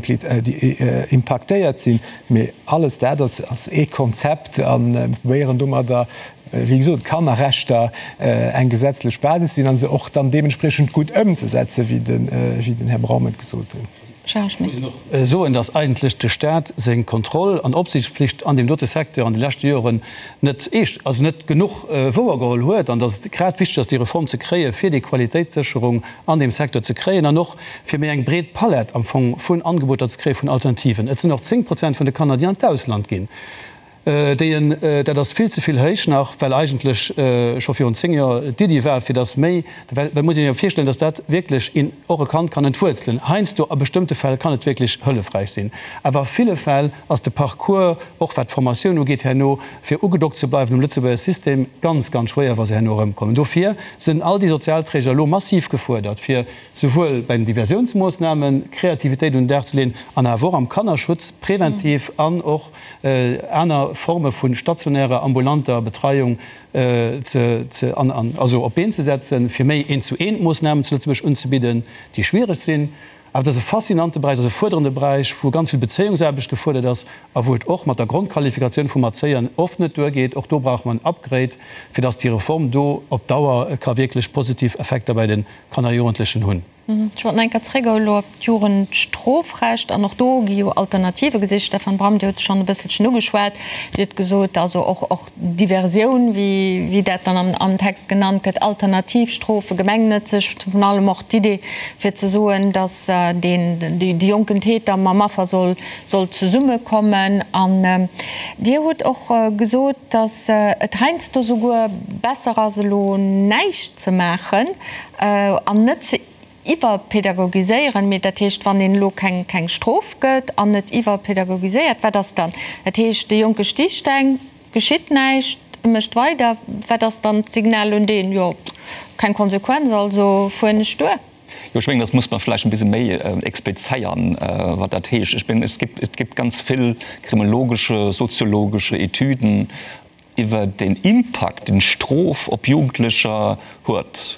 impaktéiert sinn. Mee alles dat ass ee Konzept a mir probéieren domadder wéi gesot, Kannerrechter eng gesetzlech Basis sinn a se och dann deementspriechend gutt ëmzesetzen, wéi den Här Braum et gesot huet. Charles Schmit. Ech muss och soen, dass eigentlech de Stat seng Kontroll an Opsiichtspflicht an deem dote Secteur an de leschte Joren net eescht, also net genuch wouergeholl huet an dass et grad wichteg ass, déi Reform ze kréien, fir déi Qualitéitssécherung an deem Secteur ze kréien an och fir méi eng breet Palett am Fong vun Angeboter ze kréien, vun Alternativen. Et sinn och 10 Prozent vun de Kanner, déi an d'Ausland ginn. Déi en, dat ass vill ze vill héich nach, well eigentlech scho virun 10 Joer d'Iddi war, fir datt méi, well et muss een jo virstellen, datt dat wierklech een och e Kand kann entwuerzelen. Heiansdo, a bestëmmte Fäll kann et wierklech hëllefräich sinn, awer a ville Fäll ass de Parcours, och wat d'Formatioun ugeet herno, fir ugedockt ze bleiwen um Lëtzebuerger System, ganz, ganz schwéier, wa se herno erëmkommen. Dofir sinn all déi Sozialträger elo massiv gefuerdert, fir souwuel bei den Diversiounsmoossnamen Kreativitéit un den Dag ze leeën an awer och am Kannerschutz preventiv an och aner Forme vu stationärer, ambulanter Betreiung ze, also op d'Been ze setzen, fir méi Eent-zu-eent-Moossnamen zu Lëtzebuerg unzebidden, déi schwiereg sinn. Awer et ass e faszinante Beräich, et ass e fuerderende Beräich, wou ganz vill Bezéiungsaarbecht gefuerdert ass a wou et och mat der Grondqualifikatioun vum Erzéier oft net duergeet. Och do brauche mer en Upgrade, fir dass déi Reform do op Dauer ka wierklech positiv Effekter bei de Kanner a Jugendlechen hunn. Ech wollt nach eng Kéier zréck elo op d'Jugendstrofrecht. An och do gi jo Alternative gesicht. Stefan Bram, Dir hutt et schonn e bësselchen ugeschwat. Dir hutt gesot, also och, och Diversioun, wéi, wéi dat dann am, am Text genannt gëtt, Alternativstrofe, gemengnëtzeg, virun allem och d'Idee fir ze soen, datt deen, de jonken Täter mam Affer soll, soll zesummekommen. An Dir hutt och gesot, datt et heiansdo souguer besser ass, elo näischt ze maachen an net ze iwwerpädagogiséieren. Mee dat heescht, wann een elo keng keng Strof gëtt an net iwwerpädagogiséiert, wat ass dann? Dat heescht, de Jonke sticht eng, geschitt näischt, e mécht weider. Wat ass dann d'Signal un deen? Jo, keng Konsequenz, also fueren ech duer. Jo, ech mengen, dat muss mer vläicht e bisse méi explizéieren, wat dat heescht. Ech mengen, es gibt, et gibt ganz vill kriminologesche, soziologesche Etüden iwwer den Impakt, den Strof op Jugendlecher huet.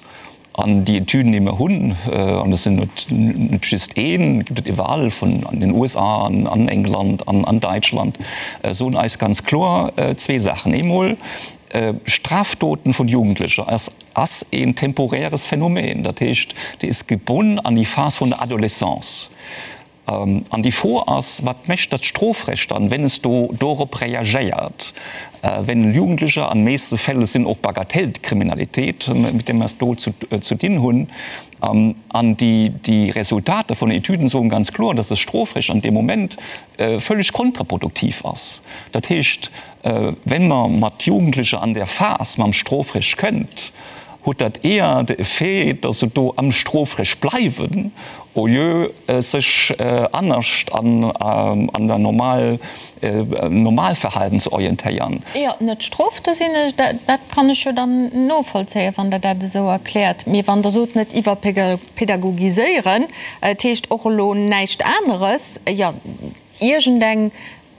An déi Etüden, déi mer hunn, an dat sinn net, net just een, gibt et iwwerall, vun an den USA an an England an an Däitschland, soen eis ganz kloer zwee Saachen. Eemol, Strafdoten vun Jugendlecher ass, ass een temporäres Phänomen. Dat heescht, déi is gebonn an déi Phas vun der Adolescence. An déi Fro ass, Wat mécht dat Strofrecht dann, wenn es do dorop reagéiert, wenn Jugendlecher, an meeste Fäll sinn och Bagatellkriminalitéit, mit där mer es do zu dinn hunn, an déi Resultater vun den Etüden soen ganz kloer, dass das Strofrecht an deem Moment völlig kontraproduktiv ass. Dat heescht, wenn mer mat Jugendlecher an där Phas mam Strofrecht kënnt, huet dat eher de Effet, dass se do am Strofrecht bleiwen, au lieu sech anescht an der normal Normalverhalten ze orientéieren. Jo, net Strof, do sinn ech, dat kann ech jo dann novollzéien, wann Der dat esou erkläert. Mee wann Der sot, net iwwerpädagogiséieren, dat heescht och elo näischt aneres, jo, iergendeng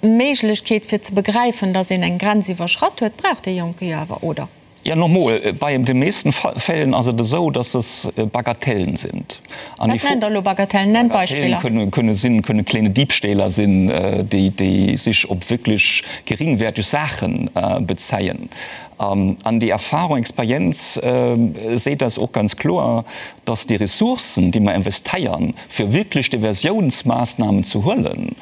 Méiglechkeet fir ze begräifen, dass een eng Grenz iwwerschratt huet, brauch dee Jonke jo awer, oder? Ja, nochmol, bei de meesten Fällen ass et esou, dass es Bagatellen sind. An Wat nennt Der elo Bagatellen? Nennt Beispiller. Bagatellen kënne sinn, kënne kleine Diebstähler sinn, déi, déi sich op wierklech geringwertig Saachen bezéien. An déi Erfahrung, Experienz seet eis och ganz kloer, dass déi Ressourcen, déi mer investeiern, fir wierklech Diversiounsmaßnahmen ze huelen,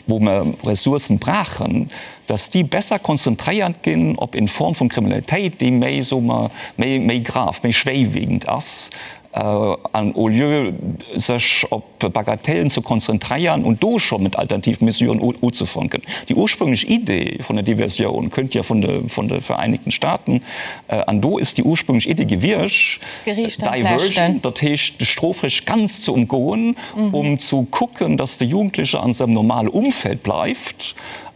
wou mer Ressourcen brauchen, dass déi besser konzentréiert ginn op eng Form vun Kriminalitéit, déi méi, soe mer, méi, méi grave, méi schwéiwiegend ass, an au lieu sech op Bagatellen ze konzentréieren und do scho mat Alternativmesuren uzefanken. Déi ursprünglech Idee vun der Diversioun kënnt jo vun de, vun de Vereinigten Staaten, an do ist déi ursprünglech Idee gewiescht, Diversion, dat heescht de Strofrecht ganz ze umgoen, um zu kucken, dass de Jugendliche an sengem normale Umfeld bleift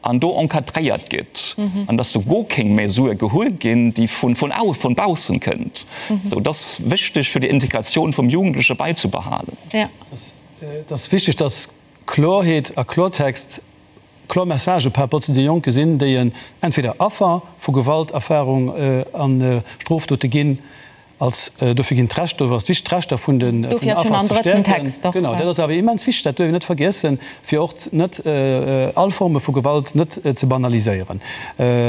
an do encadréiert gëtt an dass do guer keng Mesur gehuel ginn, déi vun vun baussen kënnt. Sou, et ass wichteg fir déi Integratioun vum Jugendleche bäizebehalen. Et ass wichteg, dass Klorheet a Klortext, kloer Messagë par rapport zu de Jonke sinn, déi en entweder Affer vu Gewalterfahrung a Strofdote ginn, als dofir ginn d'Rechter, dofir ass et wichteg d'Rechter vun den Affer ze stäerken. Genau, dat ass awer immens wichteg, dat duerf een net vergiessen, fir och net all Forme vu Gewalt net ze banaliséieren.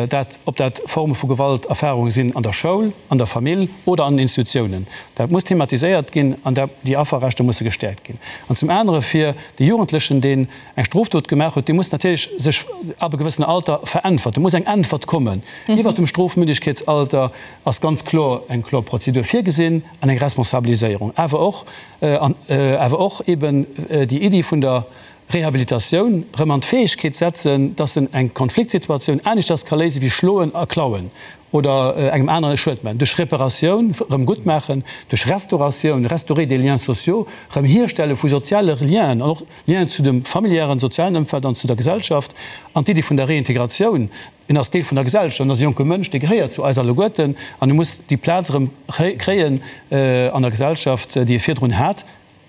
Dat, ob dat Forme vu Gewalterfahrunge sinn an der Schoul, an der Famill oder an den Institutiounen, dat muss thematiséiert ginn an dat, déi Afferrechter musse gestäerkt ginn. An zum anere fir de Jugendlechen, deen eng Strofdot gemaach huet, dee muss natierlech sech ab e gewëssenen Alter veräntwerten, muss eng Äntwert kommen. Iwwert dem Strofmündegkeetsalter ass ganz kloer eng kloer Prozedur virgesinn an eng Responsabiliséierung, awer och, awer och eben déi Iddi vun der. Rehabilitatioun, rëm an d'Fäegkeet setzen, dass en eng Konfliktsituatioun aneschters ka léisen, wéi schloen a klauen oder engem aneren e Schued maachen, duerch Reparatioun, rëm gutt maachen, duerch Restauratioun, restaurer des liens sociaux, rëm hierstelle vu soziale Lienen an och Lienen zu dem familiären, sozialen Ëmfeld an zu der Gesellschaft. An d'Iddi vun der Reintegratioun, en ass Deel vun der Gesellschaft, en ass e jonke Mënsch, dee gehéiert zu eis alleguerten an e muss déi Plaz erëm kréien an der Gesellschaft, déi e virdrun hat.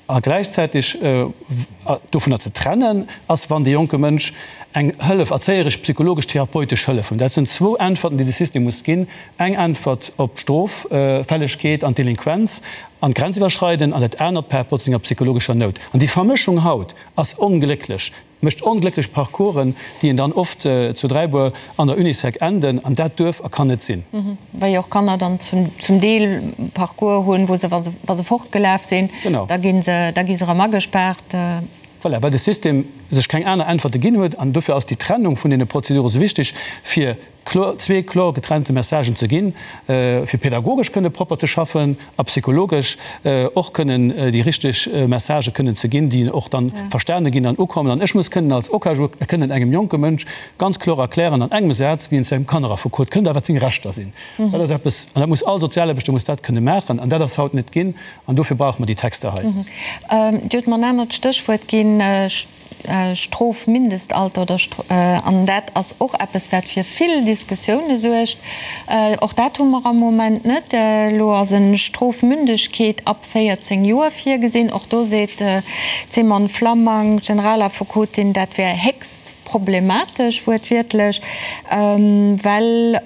A gläichzäiteg dovunner ze trennen ass, wann dee jonke Mënsch eng Hëllef, erzéieresch, psychologesch, therapeutesch Hëllef hunn. Dat sinn zwou Äntwerten, déi de System muss ginn, Eng Äntwert op d'Stroffällegkeet an d'Delinquenz an d'Grenziwwerschreiden an dat anert par rapport zu senger psychologescher Nout. An déi Vermëschung haut ass onglécklech. Mécht onglécklech Parcoursen, déi en dann oft zu Dräibuer an der Unisec enden, an dat duerf a kann net sinn. Well jo och Kanner dann zum Deel Parcours hunn, wou se, wa se fortgelaf sinn, da gi se, da gi se erëm agespaart. Voilà, well de System sech keng aner Äntwerte ginn huet. An dofir ass déi Trennung vun deene Prozedure sou wichteg, fir kloer, zwee kloer getrennte Messagen ze ginn, fir pädagogesch kënne propper ze schaffen a psychologesch och kënnen déi richteg Messagë kënnen ze ginn, déi och dann verstane ginn an ukommen. An ech muss kënnen als OKaJu kënnen engem jonke Mënsch ganz kloer erklären an engem Saz, wéi en zu engem Kanneraffekot kënnt a wat seng Rechter sinn. Dat ass eppes, an dat muss all Sozialaarbechter muss dat kënne maachen, an dat ass haut net ginn, an dofir brauche mer déi Texter hei. Dir hutt mer en anert Stéchwuert ginn. Strofmindestalter oder an dat ass och eppes wat fir vill Diskussioune suergt. Och dat hu mer am Moment net. Elo ass e Strofmündegkeet ab 14 Joer virgesinn. Och do seet d'Simone Flammang, Generalaffekotin, dat wär héchst problematesch, wuertwiertlech, well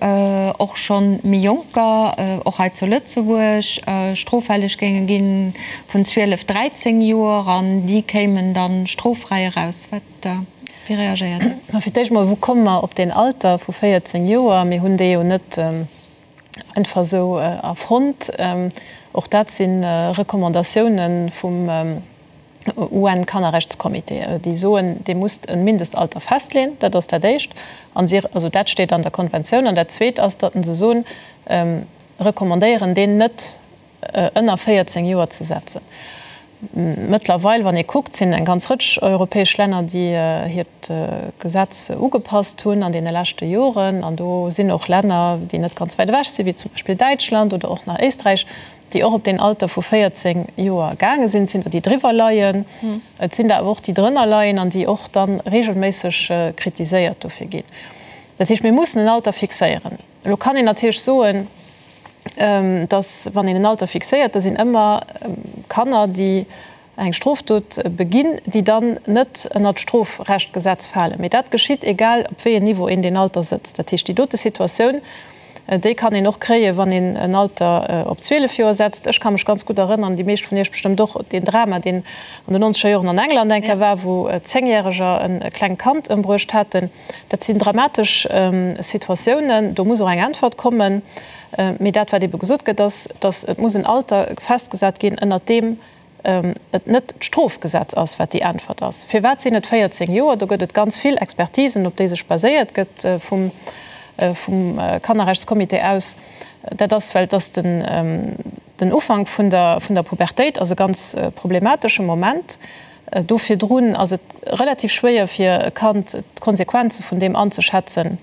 och scho méi Jonker, och hei zu Lëtzebuerg, stroffälleg géinge ginn vun 12, 13 Joer an déi kéimen da stroffräi eraus. Wat, wéi reagéiert Dir? Ma fir d'éischt mol, wou komme mer op deen Alter vu 14 Joer? Mir hunn dee jo net einfach esou erfonnt. Och dat si Recommandatiounen vum UN-Kannerrechtscomité, déi soen, Dir musst e Mindestalter festleeën. Dat ass dat Éischt. An si, also dat steet an der Konventioun. An dat Zweet ass, datt se soen, recommandéieren, deen net ënner 14 Joer ze setzen. Mëttlerweil, wann ee kuckt, sinn eng ganz Rëtsch europäesch Länner, déi hiert Gesetz ugepasst hunn an deene leschte Joren. An do sinn och Länner, déi net ganz wäit ewech sinn, wéi zum Beispill Däitschland oder och nach Éisträich, déi och op deen Alter vu 14 Joer gaange sinn. Et sinn der, déi driwwer leien, et sinn der awer och, déi drënner leien an déi och da regelméisseg kritiséiert dofir ginn. Dat heescht, mir mussen en Alter fixéieren. Elo kann een natierlech soen, dass, wann een en Alter fixéiert, da sinn ëmmer Kanner, déi eng Strofdot beginn, déi dann net ënnert d'Strofrechtgesetz falen. Mee dat geschitt, egal op wéi en Niveau een deen Alter sëtzt. Dat heescht, déi dote Situatioun, déi kann een och kréien, wann een en Alter op 12 Joer setzt. Ech ka mech ganz gutt erënnern, déi meescht vun Iech bestëmmt och, deen Drama, deen an den nonzeger Joren an England eng Kéier war, wou Zéngjäreger e klengt Kand ëmbruecht haten. Dat sinn dramatesch Situatiounen, do muss och eng Äntwert kommen. Mee dat, wat ebe gesot gëtt, ass, datt et muss en Alter festgesat ginn, ënnert deem et net d'Strofgesetz ass, wat déi Äntwert ass. Firwat sinn et 14 Joer? Do gëtt et ganz vill Expertisen, op déi sech baséiert gëtt vum Kannerrechtscomité aus. Dat ass, well et ass den Ufank vun der Pubertéit ass e ganz problematesche Moment. Do virdrun ass et relativ schwéier fir e Kand d'Konsequenze vun deem anzeschätzen,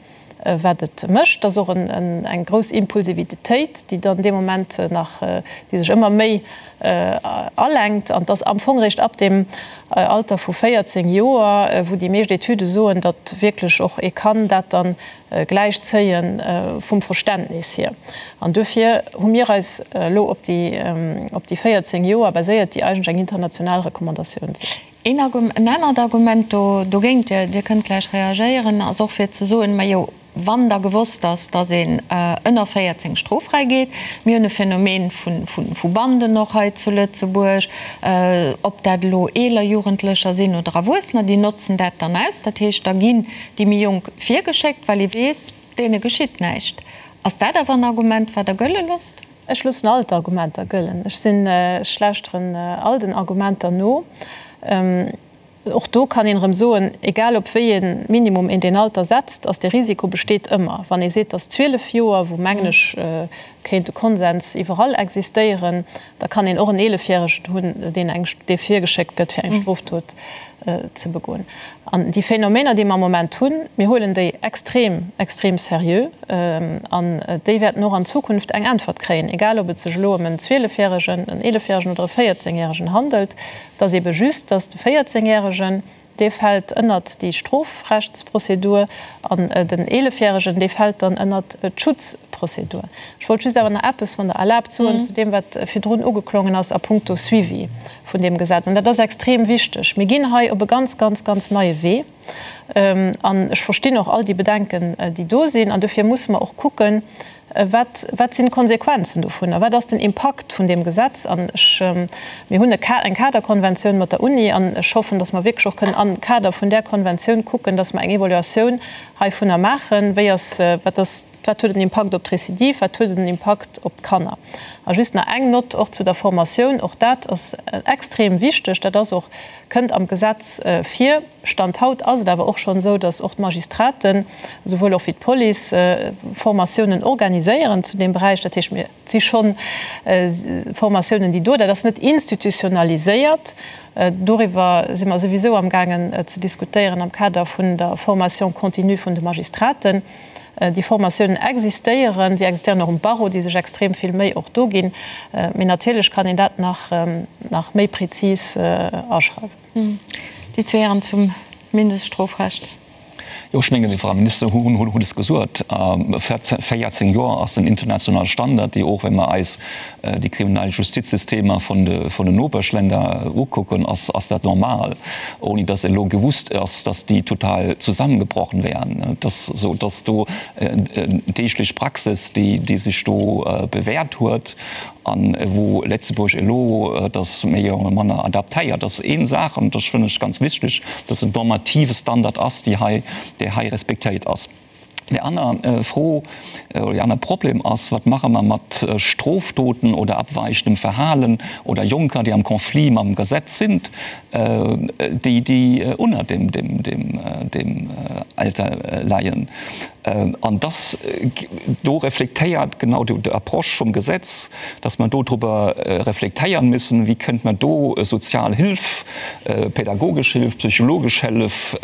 wat et mécht. Et ass och eng grouss Impulsivitéit, déi dann dee Moment nach, déi sech ëmmer méi alenkt. An et ass am Fong eréischt ab deem Alter vu 14 Joer, wou déi meescht Etüde soen, datt wierklech och ee kann dat dann gläich zéie vum Verständnis hier. An duerfir hu mir eis elo op déi op déi 14 Joer baséiert, déi eigentlech eng international Recommandatioun sinn. Een en anert Argument do dogéint, Dir Dir kënnt gläich reagéieren, ass och fir ze soen, Majo, wann da gewosst ass, datt een ënner 14 stroffräi geet, mir hunn e Phänomen vu vu Banden och hei zu Lëtzebuerg, ob dat elo eeler Jugendlecher sinn oder Erwuessener, déi notzen dat dann aus. Dat heescht, da ginn déi méi Jonk virgeschéckt, well ee weess, deene geschitt näischt. Ass dat awer en Argument, wat Der gëlle loosst? Ech loossen all d'Argumenter gëllen. Ech sinn, ech lauschteren all den Argumenter no. Och do kann een erëm soen, egal op wéi ee Minimum een deen Alter setzt, ass dee Risiko besteet ëmmer. Wann ee seet, dass 12 Joer, wou mengen ech. kéint e Konsens iwwerall existéieren. Da kann een och en Eelefjäregen hunn, deen eng, dee virgeschéckt gëtt, fir eng Strofdot ze begoen. An déi Phänomener, déi mer am Moment hunn, mir huelen déi extrem, extrem seriö an déi wäerten och an Zukunft eng Äntwert kréien, egal ob et sech elo ëm en Zwielefjäregen, en Eelefjäregen oder e Véierzéngjäregen handelt. Et ass eebe just, dass de Véierzéngjäregen, Dee fält ënnert déi Strofrechtsprozedur an den Eelefjäregen, dee fält dann ënnert d'Schutzprozedur. Ech wollt just awer nach eppes, wann Der erlaabt, soen zu deem, wat virdrun ugeklongen ass a puncto Suivi vun deem Gesetz. An dat ass extrem wichteg. Mir ginn hei op e ganz, ganz, ganz neie Wee. An ech verstinn och all déi Bedenken, déi do sinn. An dofir musse mer och kucken, Wat, wat sinn d'Konsequenzen dovunner? Wat ass den Impakt vun deem Gesetz? An ech, mir hunn e Ka, eng Kaderkonventioun mat der Uni an ech hoffen, datt mer wierklech och kënnen am Kader vun där Konventioun kucken, datt mer eng Evaluatioun heivunner maachen, wéi ass, wat ass, wat huet en Impakt op d'Recidive, wat huet en Impakt op d'Kanner? A just nach eng Nott och zu der Formatioun, och dat ass extrem wichteg, dat ass och, kënnt am Gesetz vir. Stand haut ass et awer och schonn esou, datt och d'Magistraten, esouwuel och wéi d'Police, Formatiounen organiséieren zu deem Beräich. Dat heescht, mir si schonn Formatiounen, déi do, dat ass net institutionaliséiert. Doriwwer si mer souwisou amgaangen ze diskutéieren am Kader vun der Formation continue vun de Magistraten. Déi Formatiounen existéieren, si existéieren och um Barreau, déi sech extrem vill Méi och do ginn. Mee natierlech kann een dat nach méi prezis aschreiwen. Déi zwee Hären zum Mindeststrofrecht. Jo, ech mengen, déi Frau Minister huet es gesot, 14 Joer ass en internationale Standard, déi och, wa mer eis déi kriminell Justizsystemer vun den Nopeschländer ukucken, ass dat normal, ouni dass elo gewusst ass, dass déi total zusammengebrochen wären. Et ass esou, dass do deeglech Praxis, déi sech do bewährt huet, An wou Létzebuerg elo dass méi oder manner adaptéiert ass. Een Saach, an dat fannen ech ganz wichteg, dass en normative Standard ass, déi hei, dee hei respektéiert ass. Déi aner Fro oder dee aner Problem ass, Wat maache mer mat Strofdoten oder abweichendem Verhalen oder Jonker, déi am Conflit mam Gesetz sinn, déi, déi unner deem, deem, deem, deem Alter leien? An dass do reflektéiert genau déi Approche vum Gesetz, dass mer do driwwer reflektéieren müssen, wéi kënnt mer do sozial Hilf, pädagogesch Hilf, psychologesch Hëllef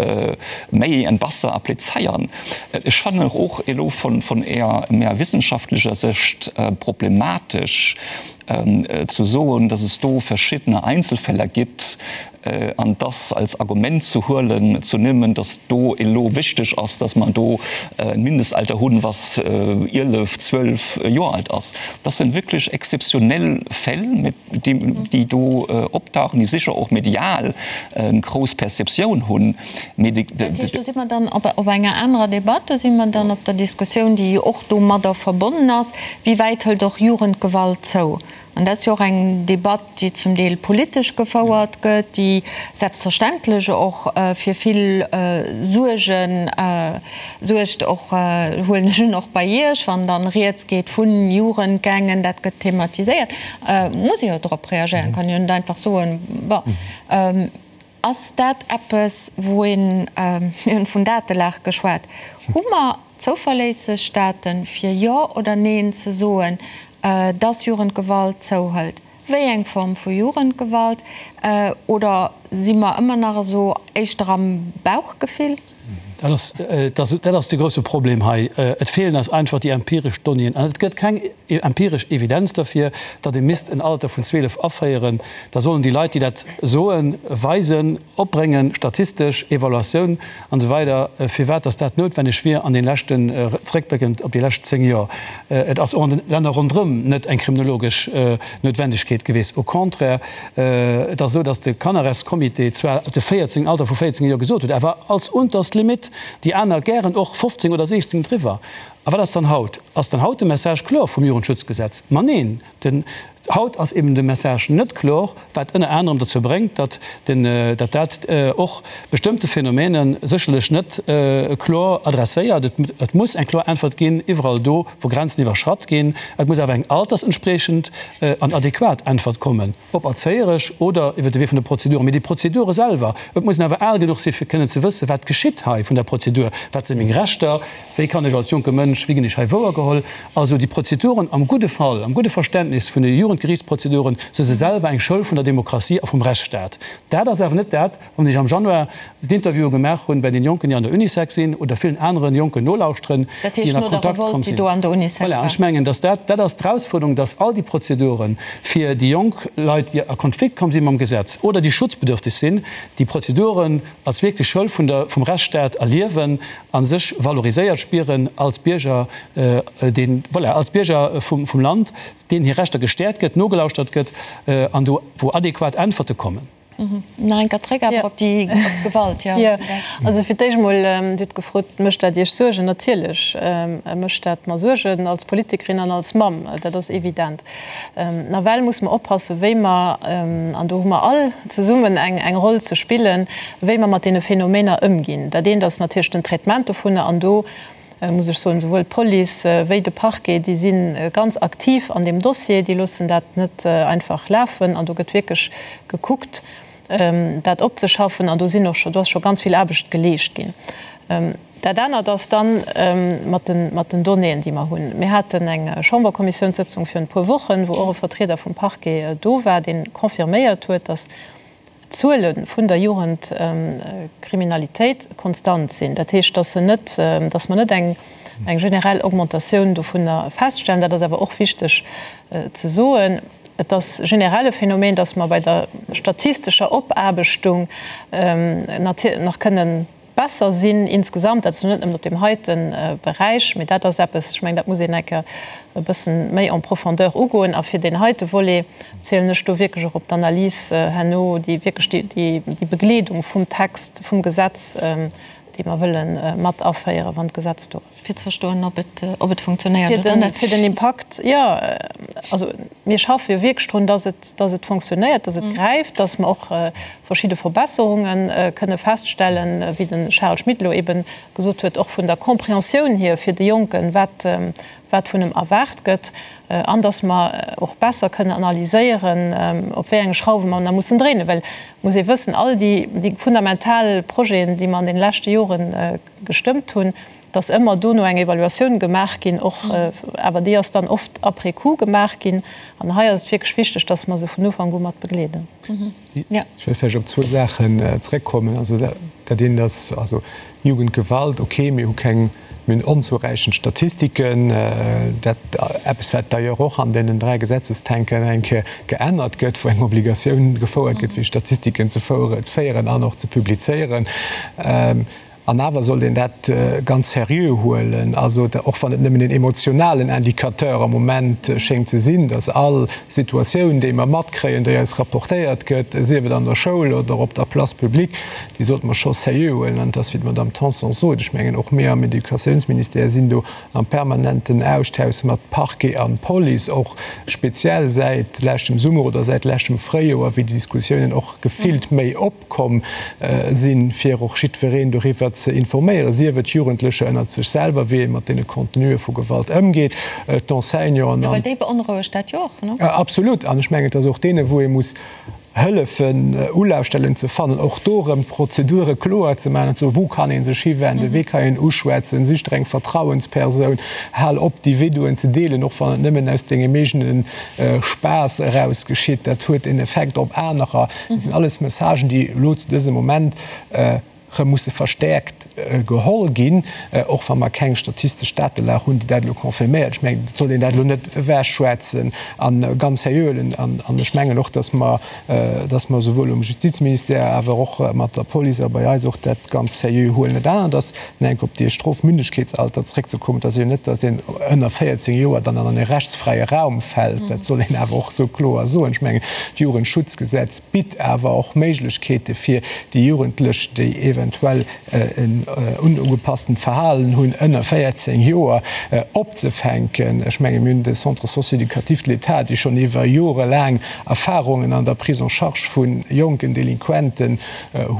méi an besser applizéieren. Ech fannen och elo vun eher méi wissenschaftlecher Sécht problematesch ze soen, dass es do verschiddene Einzelfäller gibt, An dass als Argument ze huelen, ze nimmen, dass do elo wichteg ass, dass mer do e Mindestalter hunn, was 11, 12 Joer alt ass, das sind wirklich exzeptionell Fäll, déi do optauchen, déi sécher och medial eng grouss Perceptioun hunn. Mee déi. Dat heescht, do si mer dann op enger anerer Debatt, do si mer dann op der Diskussioun, déi och domadder verbonnen ass, Wéi wäit hëlt och Jugendgewalt zou? An dat ass jo och eng Debatt, déi zum Deel politesch gefouert gëtt, déi selbstverständlech och fir vill Suerge suergt, och, huelen ech un, och bei Iech, wann dann Rieds geet vu Jugendgangen, dat gëtt thematiséiert, muss ee jo drop reagéieren, kann jo net einfach soen, bon. Ass dat eppes, wou een, mir hunn vun Datelag geschwat, hu mer zouverléisseg Daten, fir Jo oder Neen ze soen, dass Jugendgewalt zouhëlt? Wéi eng Form vu Jugendgewalt? Oder si mer ëmmer nach esou éischter am Bauchgefill? Dat ass, dat ass de grouse Problem hei. Et feelen eis einfach déi empiresch Donnéeën. An et gëtt keng empiresch Evidenz derfir, datt ee misst en Alter vun 12 aféieren. Da sollen déi Leit, déi dat soen, weisen, opbréngen, statistesch Evaluatioun an esou weider, firwat datt dat noutwenneg wier an de leschten, zréckbléckend op déi lescht 10 Joer. Et ass och an de Länner ronderëm net eng kriminologesch Noutwendegkeet gewiescht. Au contraire, Et ass esou, datt de Kannerrechtscomité zwar de 14, Alter vu 14 Joer gesot huet, awer als unterst Limite, déi aner gären och 15 oder 16 driwwer. A wat ass dann haut? Ass dann haut de Message kloer vum Jugendschutzgesetz? Ma neen! Haut ass eben de Message net kloer, wat ënner anerem dozou bréngt, datt den, datt dat och bestëmmte Phänomene sécherlech net kloer adresséiert. Et muss eng kloer Äntwert ginn iwwerall do, wou Grenzen iwwerschratt ginn. Et muss awer eng altersentspriechend an adequat Äntwert kommen, ob erzéieresch oder iwwer de Wee vun de Prozeduren. Mee déi Prozedure selwer, et muss een awer al genuch si fir kënnen ze wëssen, wat geschitt hei vun der Prozedur, wat si meng Rechter, Wéi kann ech als jonke Mënsch, wéi ginn ech hei wouergeholl? Also déi Prozeduren am gudde Fall, am gudde Verständnis vun de Jugendgerichtsprozeduren, si se selwer eng Schoul vun der Demokratie a vum Rechtsstaat. Dat ass awer net dat, wann ech am Januar d'Interviewe gemaach hunn bei den Jonken, déi an der Unisec sinn, oder villen aneren Jonken nolauschteren, Dat heescht déi an no der Kontakt Revolte, komm déi sinn. do an der Unisec Voilà, an war. ech mengen, dass dat, dat ass d'Erausfuerderung, dass all déi Prozeduren fir déi jonk Leit, déi a Konflikt komm si mam Gesetz oder déi schutzbedürftig sinn, déi Prozeduren als wierklech Schoul vun der, vum Rechtsstaat erliewen a sech valoriséiert spieren als Bierger, deen, voilà, als Bierger vum, vum Land, deenen hir Rechter gestäerkt gëtt, nogelauschtert gëtt an do wou adequat Äntwerte kommen. Nach eng Kéier zréck awer op déi, op d'Gewalt, jo. Jo, also fir d'éischt emol, Dir hutt gefrot, Mécht dat Iech Suergen? Natierlech mécht dat mer Suergen als Politikerin an als Mamm, dat ass evident. Nawell muss mer oppassen, wéi mer, an do hu mer all zesummen eng Roll ze spillen, wéi mer mat deene Phänomener ëmginn. Dat eent ass natierlech den Traitement dovunner, an do muss ech soen, souwuel d'Police wéi de Parquet, déi si ganz aktiv an deem Dossier, déi loossen dat net einfach lafen an do gëtt wierklech gekuckt, dat opzeschaffen an do sinn och scho, do ass scho ganz vill Aarbecht geleescht ginn. Dat anert ass dann mat den, mat den Donnéeën, déi mer hunn. Mir haten eng Chamberkommissiounssëtzung virun e puer Wochen, wou och e Vertrieder vum Parquet do war, dee confirméiert huet, datt d'Zuele vun der Jugendkriminalitéit konstant sinn. Dat heescht, datt se net, datt mer net eng, eng generell Augmentatioun dovunner feststellen. Dat ass awer och wichteg ze soen. Et ass generell e Phänomen, datt mer bei der statistescher Opaarbechtung nach kënnen besser sinn insgesamt. Dat ass elo net nëmmen op deem heite Beräich, mee dat ass eppes, ech mengen, dat muss een eng Kéier e bëssen méi en profondeur ugoen. A fir deen heite Volet zielen ech do wierklech och op d'Analys herno, déi wierklech déi Begleedung vum Text, vum Gesetz, déi mer wëlle mat aféieren, wann d'Gesetz do ass. Fir ze verstoen, ob et, ob et funktionéiert oder net. Fir den Impakt, jo. Also mir schaffe jo wierklech drun, dass et, dass et funktionéiert, dass et gräift, dass mer och verschidde Verbesserunge kënne feststellen, wéi de Charel Schmit elo eebe gesot huet, och vun der Compréhensioun hier fir de Jonken, wat, wat vun em erwaart gëtt, an dass mer och besser kënnen analyséieren, op wéi enge Schrauwe mer nach mussen dréinen. Well et muss ee wëssen, all déi, déi fundamental Projeten, déi mer an deene leschte Jore gestëmmt hunn, dass ëmmer dono eng Evaluatioun gemaach ginn, och, awer déi ass dann oft après coup gemaach ginn. An hei ass et wierklech wichteg, dass mer se vun Ufank u mat begleeden. Ech wëll vläicht op zwou Saachen zréckkommen. Also dat eent ass, also Jugendgewalt, okay, mir hu keng, mir hunn onzouräichend Statistiken, dat eppes wat d'ailleurs och an deenen 3 Gesetzestänken eng Kéier geännert gëtt, wou eng Obligatioun gefouert gëtt fir Statistiken ze féieren an och ze publizéieren. An awer sollt een dat ganz seriö huelen, also och wann et nëmmen een emotionalen Indicateur am Moment schéngt ze sinn, dass all Situatioun, déi mer matkréien, déi eis rapportéiert gëtt, sief et an der Schoul oder op der Place publique, déi sollte mer scho seriö huelen. An et ass, wéi d'Madame Tanson sot, ech mengen, och mir am Educatiounsministère sinn do am permanenten Austausch mat Parquet an Police, och speziell säit leschtem Summer oder säit leschtem Fréijoer, wéi déi Diskussiounen och gefillt méi op. Komm sinn, fir och jiddwereen doriwwer ze informéieren, sief et Jugendlecher ënnert sech selwer, wéi ee mat deene Contenuë vu Gewalt ëmgeet, d'Enseignanten an. Jo, well déi beonrouegt dat jo och, ne? Absolut. An ech mengen, et ass och deene wou ee muss hëllefen, Ulafstellen ze fannen, och do erëm d'Prozedure kloer ze maachen an ze soen, wou kann ee sech hiwenden, wee kann een uschwätzen, sich der eng Vertrauenspersoun, hal op déi Videoen ze deelen, och wann et nëmmen aus dengem eegene Spaass eraus geschitt, dat huet en Effekt op anerer. Dat sinn alles Messagen, déi elo zu dësem Moment erëm musse verstäerkt geholl ginn, och wa mer keng statistesch Datelag hunn, déi dat elo confirméiert. Ech mengen, et sollt een dat elo net ewechschwätzen a ganz seriö huelen. An ech mengen och, dass mer, dass mer souwuel um Justizministère, awer och mat der Police a bei eis och dat ganz seriö huelen. Dat anert ass, Enk op dee Strofmündegkeetsalter zréckzekommen, et ass jo net, datt een ënner 14 Joer dann an e rechtsfräie Raum fält. Dat soll een awer och esou kloer soen. Ech mengen, d'Jugendschutzgesetz bitt awer och Méiglechkeete fir déi Jugendlech, déi eventuell en. onugepasstent Verhalen hunn, ënner 14 Joer opzefänken. Ech menge mir hunn de Centre socio-éducatif de l'État, dee schonn iwwer Jore laang Erfahrungen an der Prise en charge vu jonken Delinquenten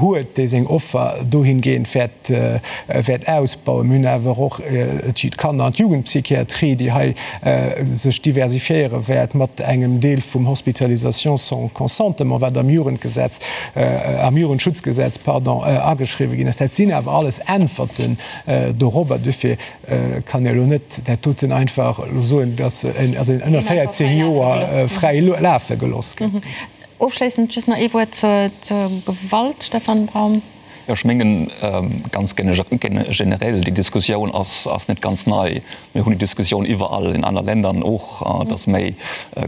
huet, dee seng Offer dohingehend wäert wäert ausbauen. Mir hunn awer och d'Kanner an d'Jugendpsychiatrie, déi hei sech diversifiéiere wäert mat engem Deel vum Hospitalisation sans consentement, wat am Jugendgesetz, am Jugendschutzgesetz, pardon, ageschriwwen ginn ass. Dat sinn awer alles Äntwerten dorobber. Dofir kann ee elo net dat doten einfach elo soen, dass en also ënner 14 Joer fräi lafe gelooss gëtt. Ofschléissend just nach ee Wuert zur Gewalt, Stefan Braum. Jo, ech mengen, ganz generell, déi Diskussioun ass net ganz nei. Mir hunn déi Diskussioun iwwerall in aner Ländern och, dass méi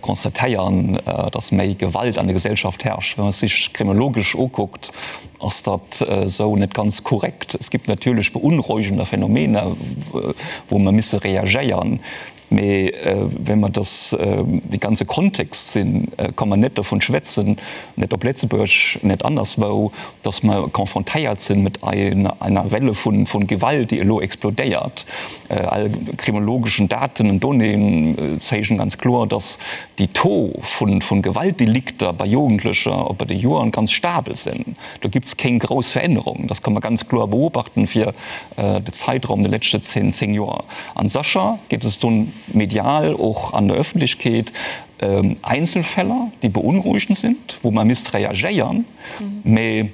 constatéieren, dass méi Gewalt an der Gesellschaft herrscht. Wa man sech kriminologesch ukuckt, ass dat esou net ganz korrekt. Es gibt natierlech beunruhigender Phänomene, wou mer misse reagéieren. Mee wa mer dass dee ganze Kontext sinn, ka mer net dovun schwätzen, net op Lëtzebuerg, net anderswou, dass mer confrontéiert sinn mat einer Welle vun Gewalt, déi elo explodéiert. All kriminologeschen Daten und Donnéeën zeigen ganz kloer, dass déi Taux vun Gewaltdelikter bei Jugendlecher op bei de Joren ganz stabel sinn. Do gibt es keng grouss Verännerung. Das kann man ganz kloer beobachten fir de Zeitraum de leschte 10, 10 Joer. An sécher gétt es dunn medial och an der Öffentlichkeet Einzelfäller, déi beunruhigend sind, wou mer misst reagéieren. Mee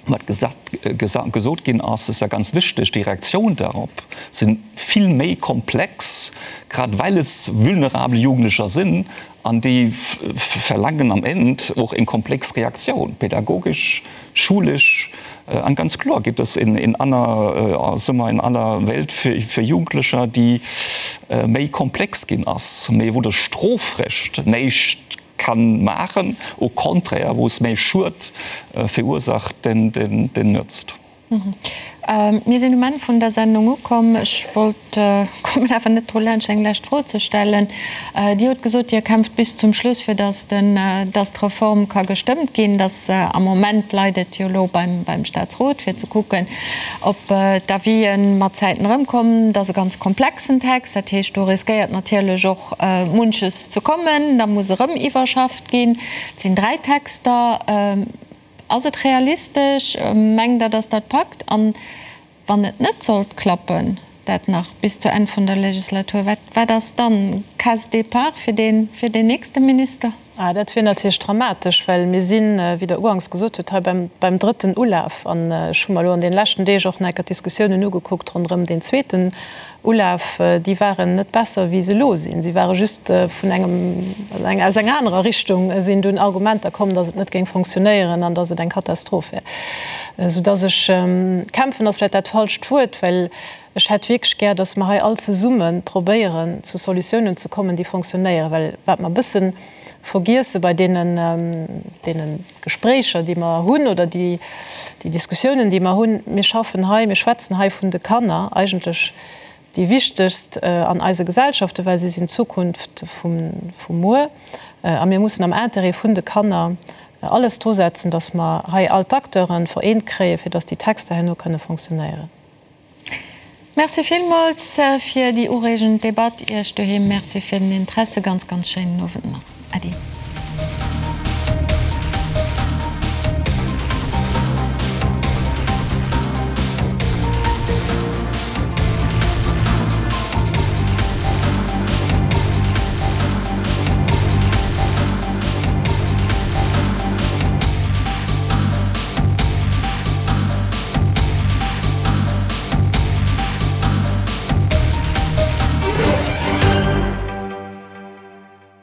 wat gesot ginn ass, ass ja ganz wichteg, déi Reaktioun darop si vill méi komplex, grad well es vulnerabel Jugendlecher sinn an déi verlaangen am Enn och eng komplex Reaktioun, pädagogesch, schulesch. An ganz kloer gibt es in aner, soe mer, in aller Welt fir Jugendlecher, déi méi komplex ginn ass, mee wou de Strofrecht näischt kann maachen, au contraire, wou es méi Schued verursacht denn nützt. Mir sinn um Enn vun der Sendung ukomm. Ech wollt, kommen awer net dru laanscht eng lescht Fro ze stellen. Dir hutt gesot, Dir kämpft bis zum Schluss, fir datt den, datt d'Reform ka gestëmmt ginn. Datt am Moment leit et jo elo beim, beim Staatsrot, fir ze kucken, ob d'Avisen mat Zäiten erëmkommen. Dat ass e ganz komplexen Text. Dat heescht, do riskéiert natierlech och munches ze kommen. Da muss erëm iwwerschafft ginn. Et sinn 3 Texter. Ass et realistesch? Mengt Der, datt dat packt? An wann et net sollt klappen, dat nach bis zu Enn vun der Legislatur, wat, wat ass dann Case départ fir deen, fir deen nächste Minister? Ah, dat wier natierlech dramatesch, well mir sinn, wéi Der uganks gesot hutt, hei beim, beim drëtten Ulaf. An ech hu mer elo an deene leschten Deeg och nach eng Kéier d'Diskussiounen ugekuckt ronderëm deen zweeten Ulaf, déi waren net besser wéi se elo sinn. Si ware just vun engem, aus enger anerer Richtung sinn dunn Argumenter komm, datt et net géing fonctionnéieren an datt et eng Katastroph wär. Soudatt ech, kämpfen ass vläicht dat falscht Wuert, well ech hätt wierklech gär, datt mer hei all zesumme probéieren zu Solutiounen ze kommen, déi fonctionnéieren. Well wat mer e bësse vergiesse bei deenen, deenen Gespréicher, déi mer hunn, oder déi, déi Diskussiounen, déi mer hunn, mir schaffen hei, mir schwätzen hei vun de Kanner, eigentlech déi wichtegst an eise Gesellschaften, well si sinn d'Zukunft vum, vum Muer. A mir mussen am Intérêt vun de Kanner alles drusetzen, dass mer hei all d'Acteure vereent kréien, fir dass déi Texter herno kënne fonctionnéieren. Merci villmools fir déi ureegend Debatt. Iech doheem Merci fir den Interesse. Ganz, ganz schéinen Owend nach. Äddi.